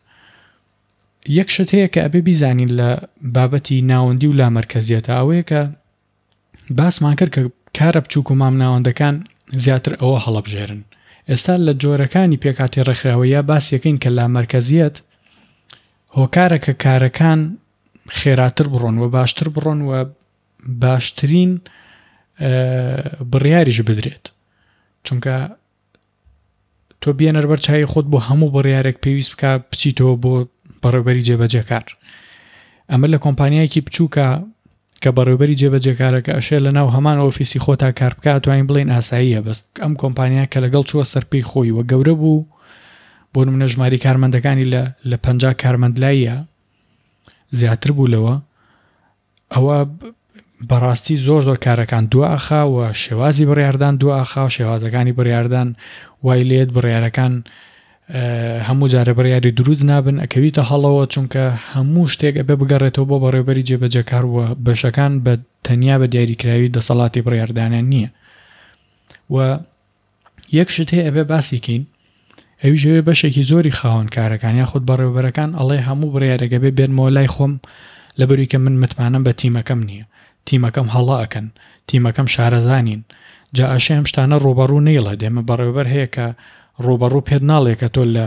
Speaker 1: یەک شت هەیە کە ئەبێ بیزانین لە بابەتی ناوەندی و لامەرکەزیەتە ئەوەیە کە باسمان کرد کە کارە بچووک و مامناوەندەکان زیاتر ئەوە هەڵەبژێرن. ئێستا لە جۆرەکانی پێکهاتەی ڕێکخراوەییا باسیەکەین کە لامەرکەزیەت هۆکارە کە کارەکان خێراتر بڕۆن و باشتر بڕۆن و باشترین بڕیاریش بدرێت چونکە تۆ بێنەر بەر چاوی خۆت بۆ هەموو بڕیارێک پێویست بکە بچیتەوە بۆ بەڕێوبەری جێبەجێکار ئەمە لە کۆمپانیایەکی بچووکە کە بەڕێوبەری جێبەجێکارەکە ئەشێ لە ناو هەمان ئۆفیسی خۆتا کار بکە توانین بڵێین ئاساییە بەس ئەم کۆمپانیا کە لەگەڵ چووە سەرپێی خۆی و گەورە بوو بۆ نمونە ژماری کارمەندەکانی لە لە 50 کارمەند لایە زیاتر بوو لەوە ئەوە بەڕاستی زۆر زۆر کارەکان دوا ئەخا و شێوازی بڕیاردان دوا ئەخا و شێوازەکانی بڕیاردان وای لێت بڕیارەکان هەموو جارێ بڕیاری دروست نابن ئەکەویتە هەڵەوە چونکە هەموو شتێک ئەبێ بگەڕێتەوە بۆ بەڕێوبەری جێبەجێکار و بەشەکان بە تەنیا بە دیاریکراوی دەسەڵاتی بڕیاردانیان نییە و یەک شت هەیە ئەبێ باسی کەین. ئەویش ئەوێ بەشێکی زۆری خاوەن کارەکان یاخود بەڕێوەبەرەکان ئەڵێ هەموو بڕیارێک ئەبێ بێنمەوە لای خۆم لەبەروی کە من متمانەم بە تیمەکەم نییە تیمەکەم هەڵە ئەکەن تیمەکەم شارەزا نین جا ئەشێ ئەم شتانە ڕووبەڕوو نەیڵێت ئێمە بەڕێوەبەر هەیە کە ڕووبەڕوو پێت ناڵێ کە تۆ لە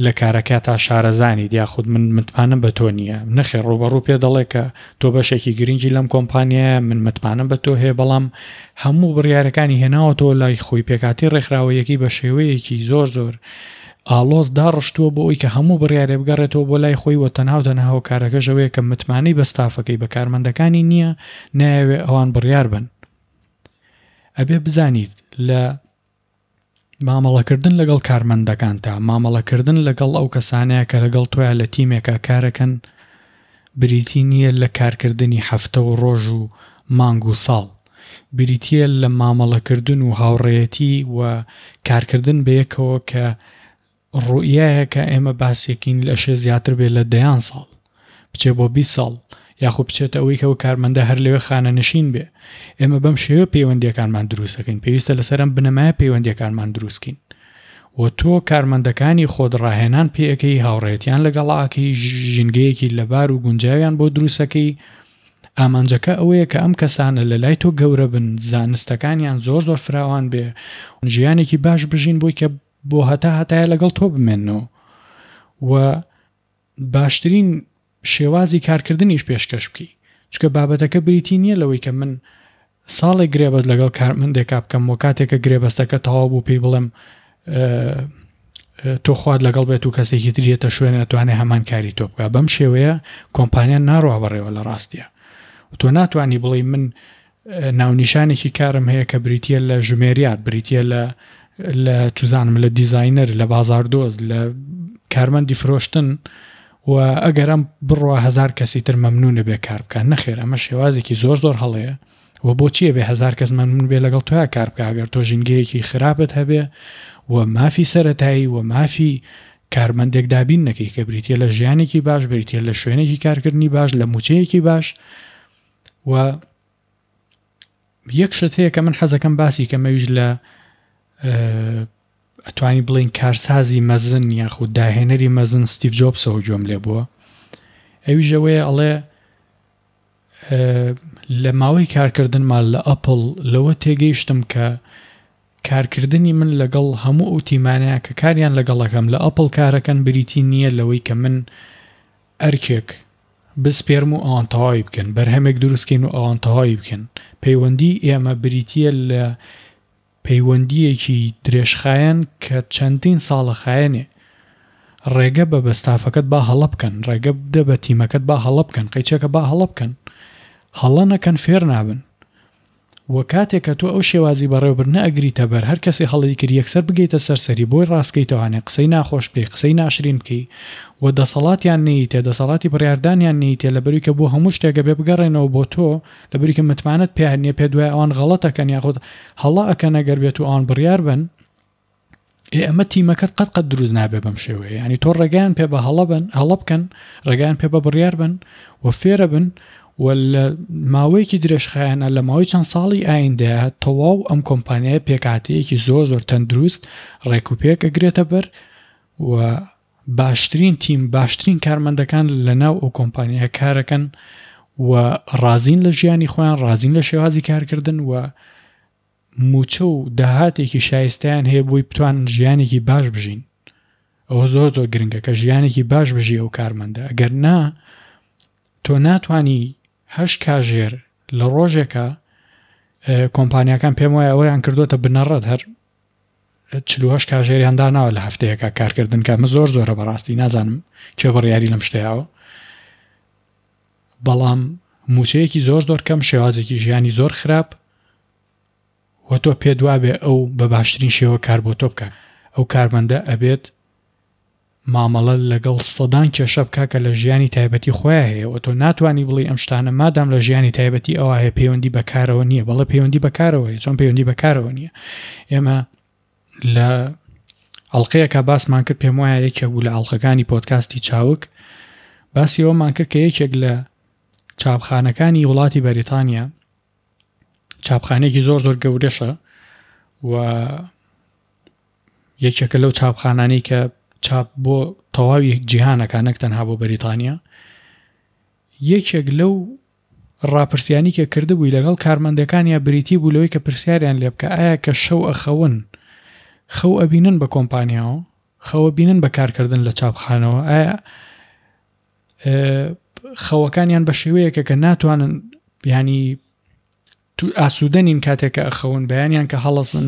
Speaker 1: لە کارەکەتا شارەزانیت یاخود من متمانەم بە تۆ نییە نەخێر ڕووبەڕوو پێ دەڵێ کە تۆ بەشێکی گرنگی لەم کۆمپانیایە من متمانەم بە تۆ هەیە بەڵام هەموو بڕیارەکانی هێناوەتەوە لای خۆی پێکاتی ڕێکخراوەیەکەی بە شێوەیەکی زۆر زۆر ئاڵۆز داڕشتووە بۆ ئەوی کە هەموو بڕیارێ بگەڕێتەوە بۆ لای خۆی و تەنها و تەنها هۆکارەکەش ئەوەیە کە متمانەی بە ستافەکەی بە کارمەندەکانی نییە نایەوێ ئەوان بڕیار بن ئەبێ بزانیت لە مامەڵەکردن لەگەڵ کارمەندەکانتا، مامەڵەکردن لەگەڵ ئەو کەسانەیە کە لەگەڵ تۆیا لە تیمێکا کارەکەن بریتی نییە لە کارکردنی هەفتە و ڕۆژ و مانگ و ساڵ، بریتییە لە مامەڵەکردن و هاوڕێیەتی و کارکردن بەیەکەوە کە ڕوئیایەکە ئێمە باسێکین ئەشێ زیاتر بێ لە دەیان ساڵ بچێ بۆ 20 ساڵ یاخود بچێتە ئەوەی کە ئەو کارمەندە هەر لەوێ خانەنشین بێ ئێمە بەم شێوە پەیوەندیەکانمان دروستەکەین پێویستە لەسەر ئەم بنەمایە پەیوەندیەکانمان دروستکەین و تۆ کارمەندەکانی خۆت ڕاهێنان پێەکەی هاوڕێتیان لەگەڵاکەی ژینگەیەکی لەبار و گونجاویان بۆ دروستەکەی ئامانجەکە ئەوەیە کە ئەم کەسانە لە لای تۆ گەورە بن زانستەکانیان زۆر زۆر فراوان بێ ژیانێکی باش بژین بۆی کە بۆ هەتا هەتایە لەگەڵ تۆ بمێننەوە و باشترین شێوازی کارکردنیش پێشکەش بکەی چونکە بابەتەکە بریتی نییە لەوەی کە من ساڵێک گرێبەست لەگەڵ کارمەندێکا بکەم و کاتێکە گرێبەستەکە تەواو بوو پێی بڵێم تۆ خوات لەگەڵ بێت و کەسێکی تریەتە شوێنە توانێ هەمان کاری تۆ بکە بەم شێوەیە کۆمپانیا ناڕوا بەڕێوە لە ڕاستیە تۆ ناتوانانی بڵێ من ناونیشانێکی کارم هەیە کە بریتییە لە ژمێریار، بریتییە لە لە چوزانم لە دیزاینەر، لە بازاردۆز، لە کارمەندی فرۆشتن و ئەگەر ئەم بڕوا هەزار کەسی تر مەمنونە بێ کار بکات نەخێر ئەمە شێوازێکی زۆر زۆر هەڵەیە و بۆچیە بێ هەزار کەس مەمنون بێ لەگەڵ تۆیا کار بکە ئەگەر تۆ ژینگەیەکی خراپت هەبێ و مافی سەتایی و مافی کارمەندێک دابین نەکەی کە بریتە لە ژیانێکی باش بریتە لە شوێنێکی کارکردنی باش لە موچەیەکی باش و یەک شت هەیە کە من حەزەکەم باسی کەم ئەویش لە ئەتوانی بڵین کارسازی مەزن یاخود داهێنەری مەزن ستیڤ جۆبسەوە گوێم لێ بووە ئەویش ئەوەیە ئەڵێ لە ماوەی کارکردنمان لە ئەپل لەوە تێگەیشتم کە کارکردنی من لەگەڵ هەموو ئەو تیمانەیە کە کاریان لەگەڵەکەم لە ئەپل کارەکەن بریتی نییە لەوەی کە من ئەرکێک بسپێرم و ئەوان تەواوی بکەن، بەرهەمێک دروست کەین و ئەوان تەواوی بکەن. پەیوەندیی ئێمە بریتییە لە پەیوەندییەکی درێژخایەن کە چەندین ساڵە خایەنێ. ڕێگە بە بە ستافەکەت با هەڵە بکەن، ڕێگە بدە بە تیمەکەت با هەڵە بکەن، قەیچەکە با هەڵە بکەن. هەڵە نەکەن فێر نابن. وە کاتێک کە تۆ ئەو شێوازی بەڕێوەبردنە ئەگریتە بەر هەر کەسێ هەڵەی کرد یەکسەر بگەیتە سەر سەری بۆی ڕاستکەیتەوانێ قسەی ناخۆش بکەی قسەی ناشرین بکەی و دەسەڵاتیان نەیتێ دەسەڵاتی بڕیاردانیان نەیتێ لەبەروی کە بۆ هەموو شتێک ئەبێ بگەڕێنەوە بۆ تۆ لەبەروی کە متمانەت پێیان نیە پێت وایە ئەوان غەڵەت ئەکەن یاخود هەڵە ئەکەن ئەگەر بێتو ئەوان بڕیار بەن. ئێ ئەمە تیمەکەت قەت قەت دروست نابێ بەم شێوەیە ینی تۆ ڕێگەیان پێ بە هەڵە بن هەڵە بکەن ڕێگەیان پێ بە بڕیار بن و فێرە بن و لە ماوەیەکی درێژخایەنە لە ماوەی چەند ساڵی ئایندەیە تەواو ئەم کۆمپانیای پێکاتەیەکی زۆر زۆر تەندروست ڕێک و پێک ئەگرێتە بەر و باشترین تیم باشترین کارمەندەکان لە ناو ئەو کۆمپانیای کارەکەن و ڕازین لە ژیانی خۆیان ڕازین لە شێوازی کارکردن و مووچە و داهاتێکی شایستەیان هەیە بۆی بتوانن ژیانێکی باش بژین ئەوە زۆر زۆر گرنگە کە ژیانێکی باش بژی ئەو کارمەندە ئەگەر نا تۆ ناتانی هەش کاژێر لە ڕۆژێکە کۆمپانیاکان پێم وایە ئەوەیان کردوتە بنەڕەت هەر چلوهش کاژێریان داناوە لە هەفتەیەکە کارکردن کە ئەمە زۆر زۆرە بەڕاستی نازانم کێ بڕیاری لەم شتەیەوە بەڵام مووچەیەکی زۆر زۆر کەم شێوازێکی ژیانی زۆر خراپ و تۆ پێت وابێ ئەو بە باشترین شێوە کار بۆ تۆ بکات ئەو کارمەندە ئەبێت مامەڵە لەگەڵ سەدان کێشە بکا کە لە ژیانی تایبەتی خۆیا هەیە و تۆ ناتوانی بڵێی ئەم شتانە مادام لە ژیانی تایبەتی ئەوا هەیە پەیوەندی بە کارەوە نییە بەڵێ پەیوەندی بە کارەوە هەیە چۆن پەیوەندی بە کارەوە نییە ئێمە لە ئەڵلقەیەکە باسمان کرد پێم وایە یەکێک بوو لە ئەڵلقەکانی پۆتکاستی چاوک باسی ئەومان کرد کە یەکێک لە چاپخانەکانی وڵاتی بەریتانیا چاپخانێکی زۆر زۆر گەورەشە و یەکێکە لەو چاپخانانەی کە چاپ بۆ تەواوی جیهانەکە نەک تەنها بۆ بەریتانیا یەکێک لەو ڕاپرسیانی کە کردبووی لەگەڵ کارمەندەکانیا بریتی بوو لەوەی کە پرسیاریان لێ بکە ئایا کە شەو ئەخەون خەو ئەبینن بە کۆمپانیاوە خەوە بینن بە کارکردن لە چاپخانەوە ئایا خەوەکانیان بە شێوەیەکە کە ناتوانن ینی ئاسوودە نین کاتێک کە ئەخەون بەیانیان کە هەڵەسن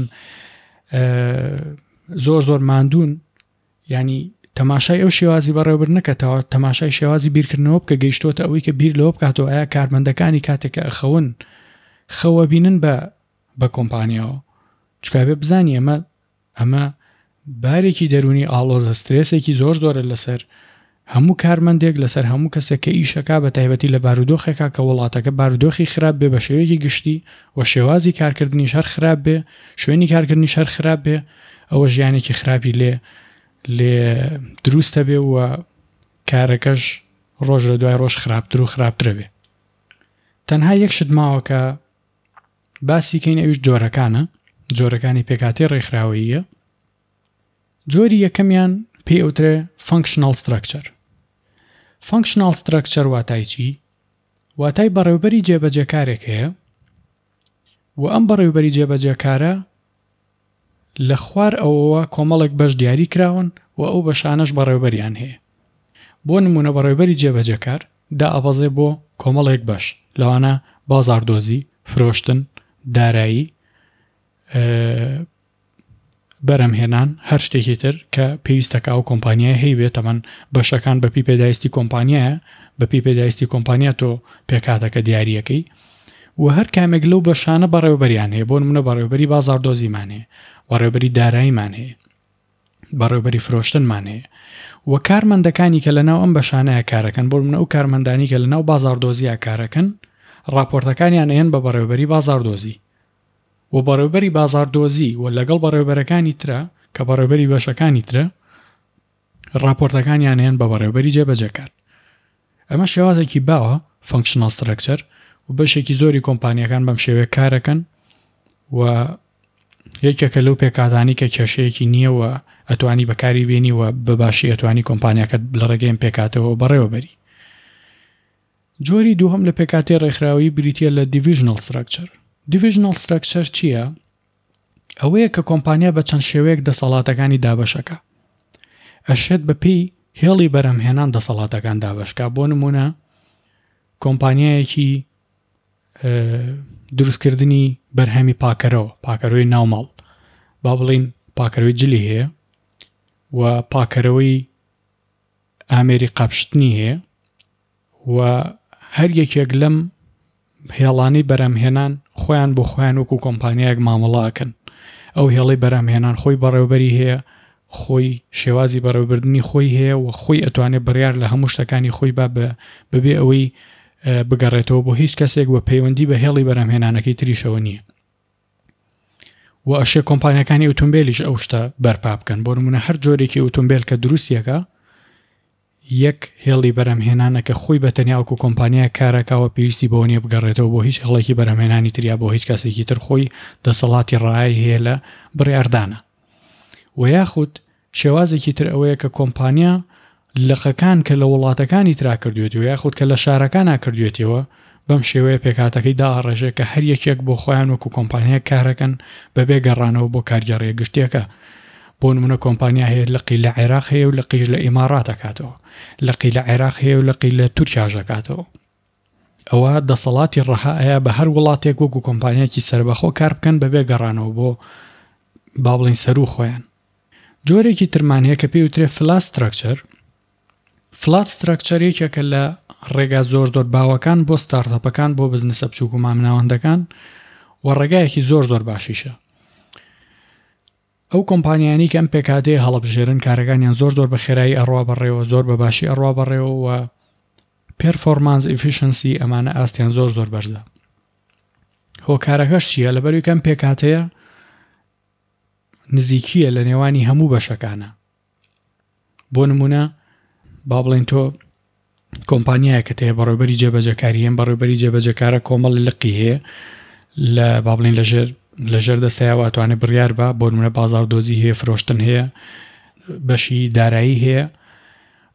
Speaker 1: زۆر زۆر ماندوون ینی تەماشای ئەو شێوازی بەڕێوەبردنە کە تەماشای شێوازی بیرکردنەوە بکە گەیشتۆتە ئەوەی کە بیر لەوە بکاتەوە ئایا کارمەندەکانی کاتێک کە ئەخەون خەوە بینن بە بە کۆمپانیاوە چکابێ بزانی ئەمە ئەمە بارێکی دەروونی ئاڵۆزە، سترێسێکی زۆر زۆرە لەسەر هەموو کارمەندێک، لەسەر هەموو کەسێک کە ئیشەکا، بە تایبەتی لە بارودۆخێکا کە وڵاتەکە بارودۆخی خراپ بێ بە شێوەیەکی گشتی و شێوازی کارکردنیش هەر خراپ بێ، شوێنی کارکردنیش هەر خراپ بێ، ئەوە ژیانێکی خراپی لێ لێ دروستە بێ و کارەکەش ڕۆژ لە دوای ڕۆژ خراپتر و خراپترە بێ. تەنها یەک شت ماوە کە باسی کەین ئەویش جۆرەکانە، جۆرەکانی پێکهاتەی ڕێکخراوەییە. جۆری یەکەمیان پێی ئەوترێ Functional Structure. Functional Structure واتای چی؟ واتای بەڕێوبەری جێبەجێکارێک هەیە و ئەم بەڕێوبەری جێبەجێکارە لە خوار ئەوەوە کۆمەڵێک بەش دیاری کراون و ئەو بەشانەش بەڕێوبەریان هەیە. بۆ نموونە بەڕێوبەری جێبەجێکار دائەبەزێ بۆ کۆمەڵێک بەش لەوانە بازاڕدۆزی، فرۆشتن، دارایی، بەرهەمهێنان، هەر شتێکی تر کە پێویستە کە ئەو کۆمپانیایە هەیبێ تەبەن بەشەکان بەپی پێداویستی کۆمپانیایە بەپی پێداویستی کۆمپانیا تۆ پێکهاتەکە دیاریەکەی و هەر کامێک لەو بەشانە بەڕێوبەریان هەیە بۆ نمونە بەڕێوبەری بازاڕدۆزیمان هەیە بەڕێوبەری داراییمان هەیە بەڕێوبەری فرۆشتنمان هەیە و کارمەندەکانی کە لەناو ئەم بەشانەیە کارەکەن بۆ منە ئەو کارمەندانی کە لەناو بازاڕدۆزیە کارەکەن ڕاپۆرتەکانیان ئەیەن بە بەڕێوبەری بازاڕدۆزی و بەڕێوبەری بازاڕدۆزی و لەگەڵ بەڕێوبەرەکانی ترە کە بەڕێوبەری بەشەکانی ترە ڕاپۆرتەکانیان ئەیەن بە بەڕێوبەری جێبەجێکار ئەمە شێوازێکی باوە Functional Structure و بەشێکی زۆری کۆمپانیەکان بەم شێوەیە کارەکەن و یەکێکە لەو پێکهاتانەی کە کێشەیەکی نییە و ئەتوانی بەکاری بێنی و بە باشی ئەتوانی کۆمپانیاکەت لە ڕێگەی ئەم پێکهاتەوە بەڕێوەبەری. جۆری دووهەم لە پێکهاتەی ڕێکخراوەیی بریتییە لە Divisional Structure. Divisional Structure چییە؟ ئەوەیە کە کۆمپانیا بە چەند شێوەیەک دەسەڵاتەکانی دابەشەکا. ئەشێت بە پێی هێڵی بەرهەمهێنان دەسەڵاتەکان دابەشکا بۆ نموونە کۆمپانیایەکی دروستکردنی بەرهەمی پاکەرەوە پاکەرەوەی ناوماڵ با بڵین پاکەرەوەی جلی هەیە و پاکەرەوەی ئامێری قاپشتنی هەیە و هەر یەکێک لەم هێڵانەی بەرهەمهێنان خۆیان بۆ خۆیان وەکو کۆمپانیایەک مامەڵە ئەکەن ئەو هێڵەی بەرهەمهێنان خۆی بەڕێوبەری هەیە خۆی شێوازی بەڕێوبردنی خۆی هەیە و خۆی ئەتوانێت بڕیار لە هەموو شتەکانی خۆی با بەبێ ئەوەی بگەڕێتەوە بۆ هیچ کەسێک و پەیوەندی بە هێڵی بەرهەمهێنانەکەی تریشەوە نییە و ئەشێ کۆمپانیەکانی ئۆتۆمبیلیش ئەو شتە بەرپا بکەن بۆ نمونە هەر جۆرێکی ئۆتۆمبیل کە دروستیەکە یەک هێڵی بەرهەمهێنانە کە خۆی بە تەنیا وەکو کۆمپانیایەک کارەکا و پێویستی بەوە نیە بگەڕێتەوە بۆ هیچ هێڵێکی بەرهەمهێنانی تر یا بۆ هیچ کەسێکی تر خۆی دەسەڵاتی ڕەهای هەیە لە بڕیاردانە و یاخود شێوازێکی تر ئەوەیە کە کۆمپانیا لقەکان کە لە وڵاتەکانی ترا کردوێتیەوە یاخود کە لە شارەکانا کردوێتیەوە بەم شێوەیە پێکهاتەکەی دائەڕێژێ کە هەر یەکێک بۆ خۆیان وەکو کۆمپانیایەک کارەکەن بەبێ گەڕانەوە بۆ کارگێڕیە گشتیەکە. بۆ نمونە کۆمپانیا هەیە لقی لە عێراق هەیە و لقیش لە ئیماڕات ئەکاتەوە، لقی لە عێراق هەیە و لقی لە تورکیاش ئەکاتەوە. ئەوە دەسەڵاتی ڕەها ئەیا بە هەر وڵاتێک وەکو کۆمپانیایەکی سەربەخۆ کار بکەن بەبێ گەڕانەوە بۆ با بڵێین سەروو خۆیان. جۆرێکی ترمان هەیە کە پێی وترێ فلات ستراکچەر، فلات ستراکچەر یەکێکە لە ڕێگا زۆر زۆر باوەکان بۆ ستارتەپەکان بۆ بزنسە بچووک و مامناوەندەکان و ڕێگایەکی زۆر زۆر باشیشە. ئەو کۆمپانیانی کە ئەم پێکهاتەیە هەڵەبژێرن کارەکانیان زۆر زۆر بە خێرایی ئەڕوا بەڕێوە زۆر بە باشی ئەڕوا بەڕێوە و پێرفۆرمانس ئیفیشنسی ئەمانە ئاستیان زۆر زۆر بەرزە. هۆکارەکەش چییە؟ لەبەروی کەم پێکهاتەیە نزیکیە لە نێوانی هەموو بەشەکانە بۆ نمونە با بڵێن تۆ کۆمپانیایەکەت هەیە بەڕێوبەری جێبەجێکاری هەم بەڕێوبەری جێبەجێکارە کۆمەڵی لقی هەیە لە با بڵێن لەژێر لە ژێر دەستەیە و ئەتوانێت بڕیار بە بۆ نمونە بازاڕدۆزی هەیە فرۆشتن هەیە بەشی دارایی هەیە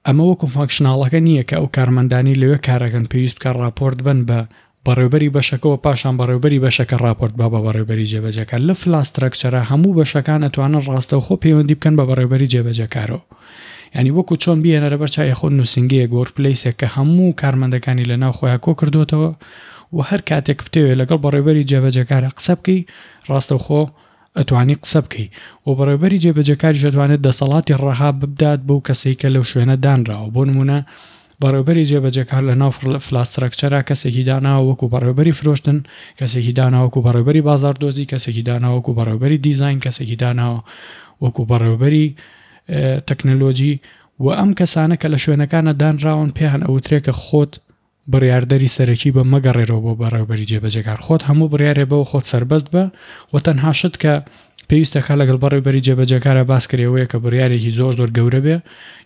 Speaker 1: ئەمە وەکو functional ەکە نییە کە ئەو کارمەندانی لەوێ کارەکەن پێویست بکە ڕاپۆرت بن بە بەڕێوبەری بەشەکەوە پاشان بەڕێوبەری بەشەکە ڕاپۆرت با بە بەڕێوبەری جێبەجێکار لە flat structure ە هەموو بەشەکان ئەتوانن ڕاستەوخۆ پەیوەندی بکەن بە بەڕێوبەری جێبەجێکارەوە یانی وەکو چۆن بیهێنەرە بەر چاوی خۆت نووسینگەیەک workplace ێک کە هەموو کارمەندەکانی لە ناو خۆیان کۆ کردوتەوە و هەر کاتێک بتەوێت لەگەڵ بەڕێوبەری جێبەجێکارە قسە بکەی ڕاستەوخۆ ئەتوانی قسە بکەی و بەڕێوبەری جێبەجێکاریش ئەتوانێت دەسەڵاتی ڕەها ببدات بەو کەسەی کە لەو شوێنە دانراوە بۆ نمونە بەڕێوبەری جێبەجێکار لە ناو flat structure ا کەسێکی داناوە وەکو بەڕێوبەری فرۆشتن کەسێکی داناوە وەکو بەڕێوبەری بازاڕدۆزی کەسێکی داناوە وەکو بەڕێوبەری دیزاین کەسێکی داناوە وەکو بەڕێوبەری تەکنەلۆجی و ئەم کەسانە کە لە شوێنەکانە دانراون پێیان ئەوترێ کە خۆت بڕیاردەری سەرەکی بە مەگەڕێرەوە بۆ بەڕێوبەری جێبەجێکار خۆت هەموو بڕیارێ بەوە خۆت سەربەست بە و تەنها شت کە پێویستەکە لەگەڵ بەڕێوبەری جێبەجێکارە باس کرێ ئەوەیە کە بڕیارێکی زۆر زۆر گەورە بێ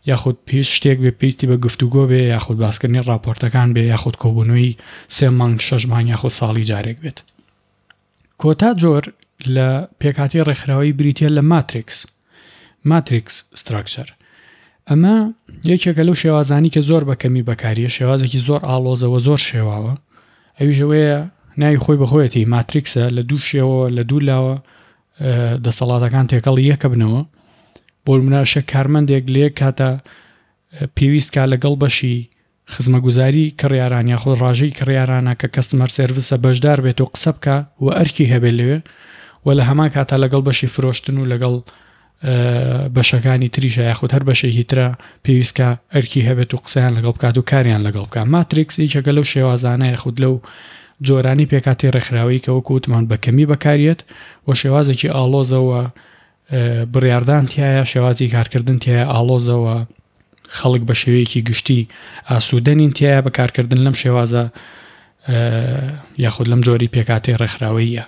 Speaker 1: یاخود پێویست شتێک بێ پێویستی بە گفتوگۆ بێ یاخود باسکردنی ڕاپۆرتەکان بێ یاخود کۆبوونەوەی سێ مانگ شەش مانگ یاخود ساڵی جارێک بێت. کۆتا جۆر لە پێکهاتەی ڕێکخراوەیی بریتییە لە ماتریکس، Matrix Structure. ئەمە یەکێکە لەو شێوازانی کە زۆر بە کەمی بەکاریە، شێوازێکی زۆر ئاڵۆزە و زۆر شێواوە. ئەویش ئەوەیە ناوی خۆی بەخۆیەتی ماتریکسە لە دوو شێوە لە دوو لاوە دەسەڵاتەکان تێکەڵی یەکەبنەوە. بۆ نمونە ئەشێ کارمەندێک لە یەک کاتا پێویست کا لەگەڵ بەشی خزمەگوزاری کڕیاران یاخود ڕاژەی کڕیارانە کە customer service ە بەشدار بێت و قسە بکا و ئەرکی هەبێت لەوێ و لە هەمان کاتا لەگەڵ بەشی فرۆشتن و لەگەڵ بەشەکانی تریشە یاخود هەر بەشێکی ترە پێویست کە ئەرکی هەبێت و قسەیان لەگەڵ بکات و کاریان لەگەڵ بکات ماتریکس یەکێکە لەو شێوازانە یاخود لەو جۆرانی پێکاتی ڕێکخراوەی کە وەکو وتمان بە کەمی بەکاریەت و شێوازێکی ئاڵۆزەوە بڕیاردان تیایە، شێوازی کارکردن تیایە ئاڵۆزە و خەڵک بە شێوەیەکی گشتی ئاسوودە نین تیایە بە کارکردن لەم شێوازە یاخود لەم جۆری پێکهاتەی ڕێکخراوەییە.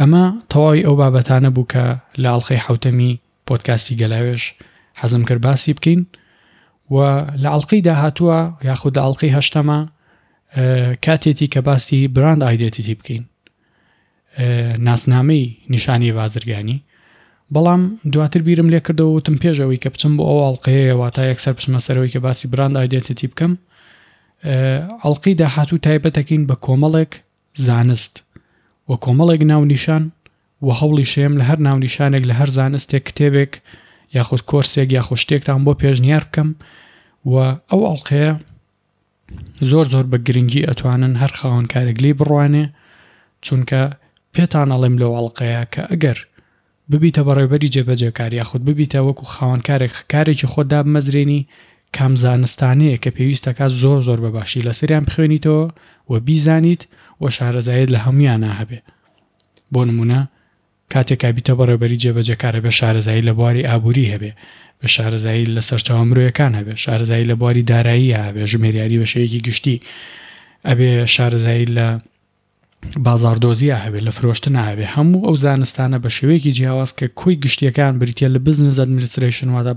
Speaker 1: ئەمە تەواوی ئەو بابەتانە بوو کە لە ئەڵقەی حەوتەمی پۆدکاستی گەلاوێژ حەزم کرد باسی بکەین و لە ئەڵقەی داهاتووە یاخود لە ئەڵقەی هەشتەمە کاتێتی کە باسی brand identity بکەین. ناسنامەی نیشانی بازرگانی بەڵام دواتر بیرم لێ کردەوە وتم پێش ئەوەی کە بچم بۆ ئەو ئەڵقەیە واتا یەکسەر بچمە سەرەوەی کە باسی brand identity بکەم ئەڵقەی داهاتوو تایبەتەکەین بە کۆمەڵێک زانست و کۆمەڵێک ناونیشان و هەوڵی شەیەم لە هەر ناونیشانێک لە هەر زانستێک کتێبێک یاخود کۆرسێک یاخود شتێکتان بۆ پێشنیار بکەم و ئەو ئەڵقەیە زۆر زۆر بە گرنگی ئەتوانن هەر خاوەن کارێک لێی بڕوانێ چونکە پێتان ئەڵێم لەو ئەڵقەیە کە ئەگەر ببیتە بەڕێوبەری جێبەجێکار یاخود ببیتە وەکو خاوەن کارێک کارێکی خۆت دابمەزرێنی کام زانستانەیە کە پێویستەکە زۆر زۆر بە باشی لەسەریان بخوێنیتەوە و بیزانیت و شارەزایت لە هەمویانە هەبێ بۆ نمونە کاتێک ئەبیتە بەڕێوبەری جێبەجێکار ئەبێ شارەزایی لە بواری ئابووری هەبێ، بێ شارەزایی لە سەرچاوە مرۆیەکان هەبێ، شارەزایی لە بواری داراییە هەبێ، ژمێریاری بە شێوەیەکی گشتی ئەبێ شارەزایی لە بازاڕدۆزیە هەبێ، لە فرۆشتنا هەبێ، هەموو ئەو زانستانە بە شێوەیەکی جیاواز کە کۆی گشتیەکان بریتیە لە business administration واتە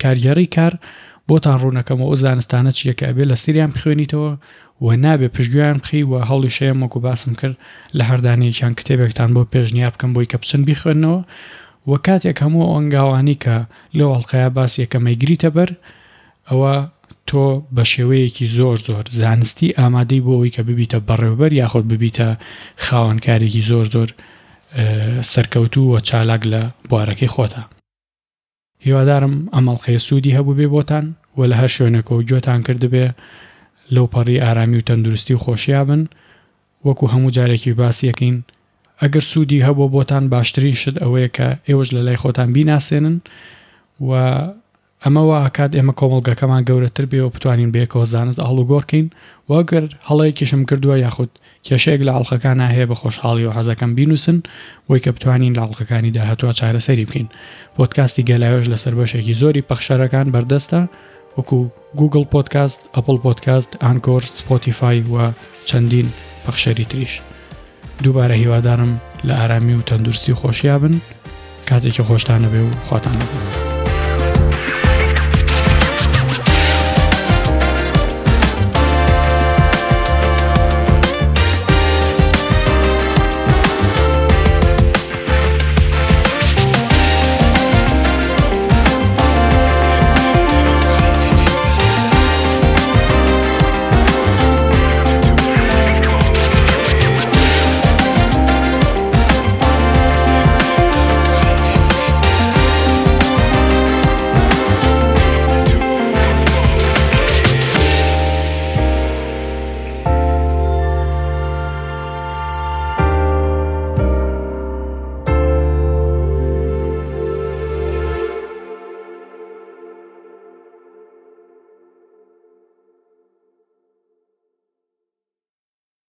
Speaker 1: کارگێڕی کار بۆتان ڕوونەکەمەوە ئەو زانستانە چییە کە ئەبێ لەسەریان بخوێنیتەوە و نابێ پشتگوێیان بخەی و هەوڵیش هەیە وەکو باسم کرد لە هەر دانەیەکیان کتێبێکتان بۆ پێشنیار بکەم بۆی کە بچن بیخوێننەوە و کاتێک هەموو ئەو هەنگاوانەی کە لەو ئەڵقەیە باس یەکەم ئەیگریتە بەر ئەوە تۆ بە شێوەیەکی زۆر زۆر زانستی ئامادەی بۆ ئەوەی کە ببیتە بەڕێوبەر یاخود ببیتە خاوەن کارێکی زۆر زۆر سەرکەوتوو و چالاک لە بوارەکەی خۆتا. هیوادارم ئەم ئەڵقەیە سوودی هەبووبێ بۆتان و لە هەر شوێنێکەوە گوێتان کردبێ لەو پەڕی ئارامی و تەندروستی و خۆشیا بن وەکو هەموو جارێکیش باسی ئەکەین ئەگەر سوودی هەبووە بۆتان باشترین شت ئەوەیە کە ئێوەش لە لای خۆتان بیناسێنن و ئەمە وا ئەکات ئێمە کۆمەڵگەکەمان گەورەتر بێ و بتوانین بەیەکەوە زانست ئاڵوگۆڕ کەین و ئەگەر هەڵەیەکیشم کردووە یاخود کێشەیەک لە ئەڵقەکانا هەیە بە خۆشحاڵیەوە حەزەکەم بینوسن بۆی کە بتوانین لە ئەڵقەکانی داهاتوە چارەسەری بکەین پۆدکاستی گەلاوێژ لەسەر بەشێکی زۆری پەخشەرەکان بەردەستە وەکو گوگڵ پۆدکاست، ئەپڵ پۆدکاست، ئانکۆر، سپۆتیفای و چەندین پەخشەری تریش. دووبارە هیوادارم لە ئارامی و تەندروستی و خۆشیا بن. کاتێکی خۆشتان هەبێ و خواتان لەگەڵ.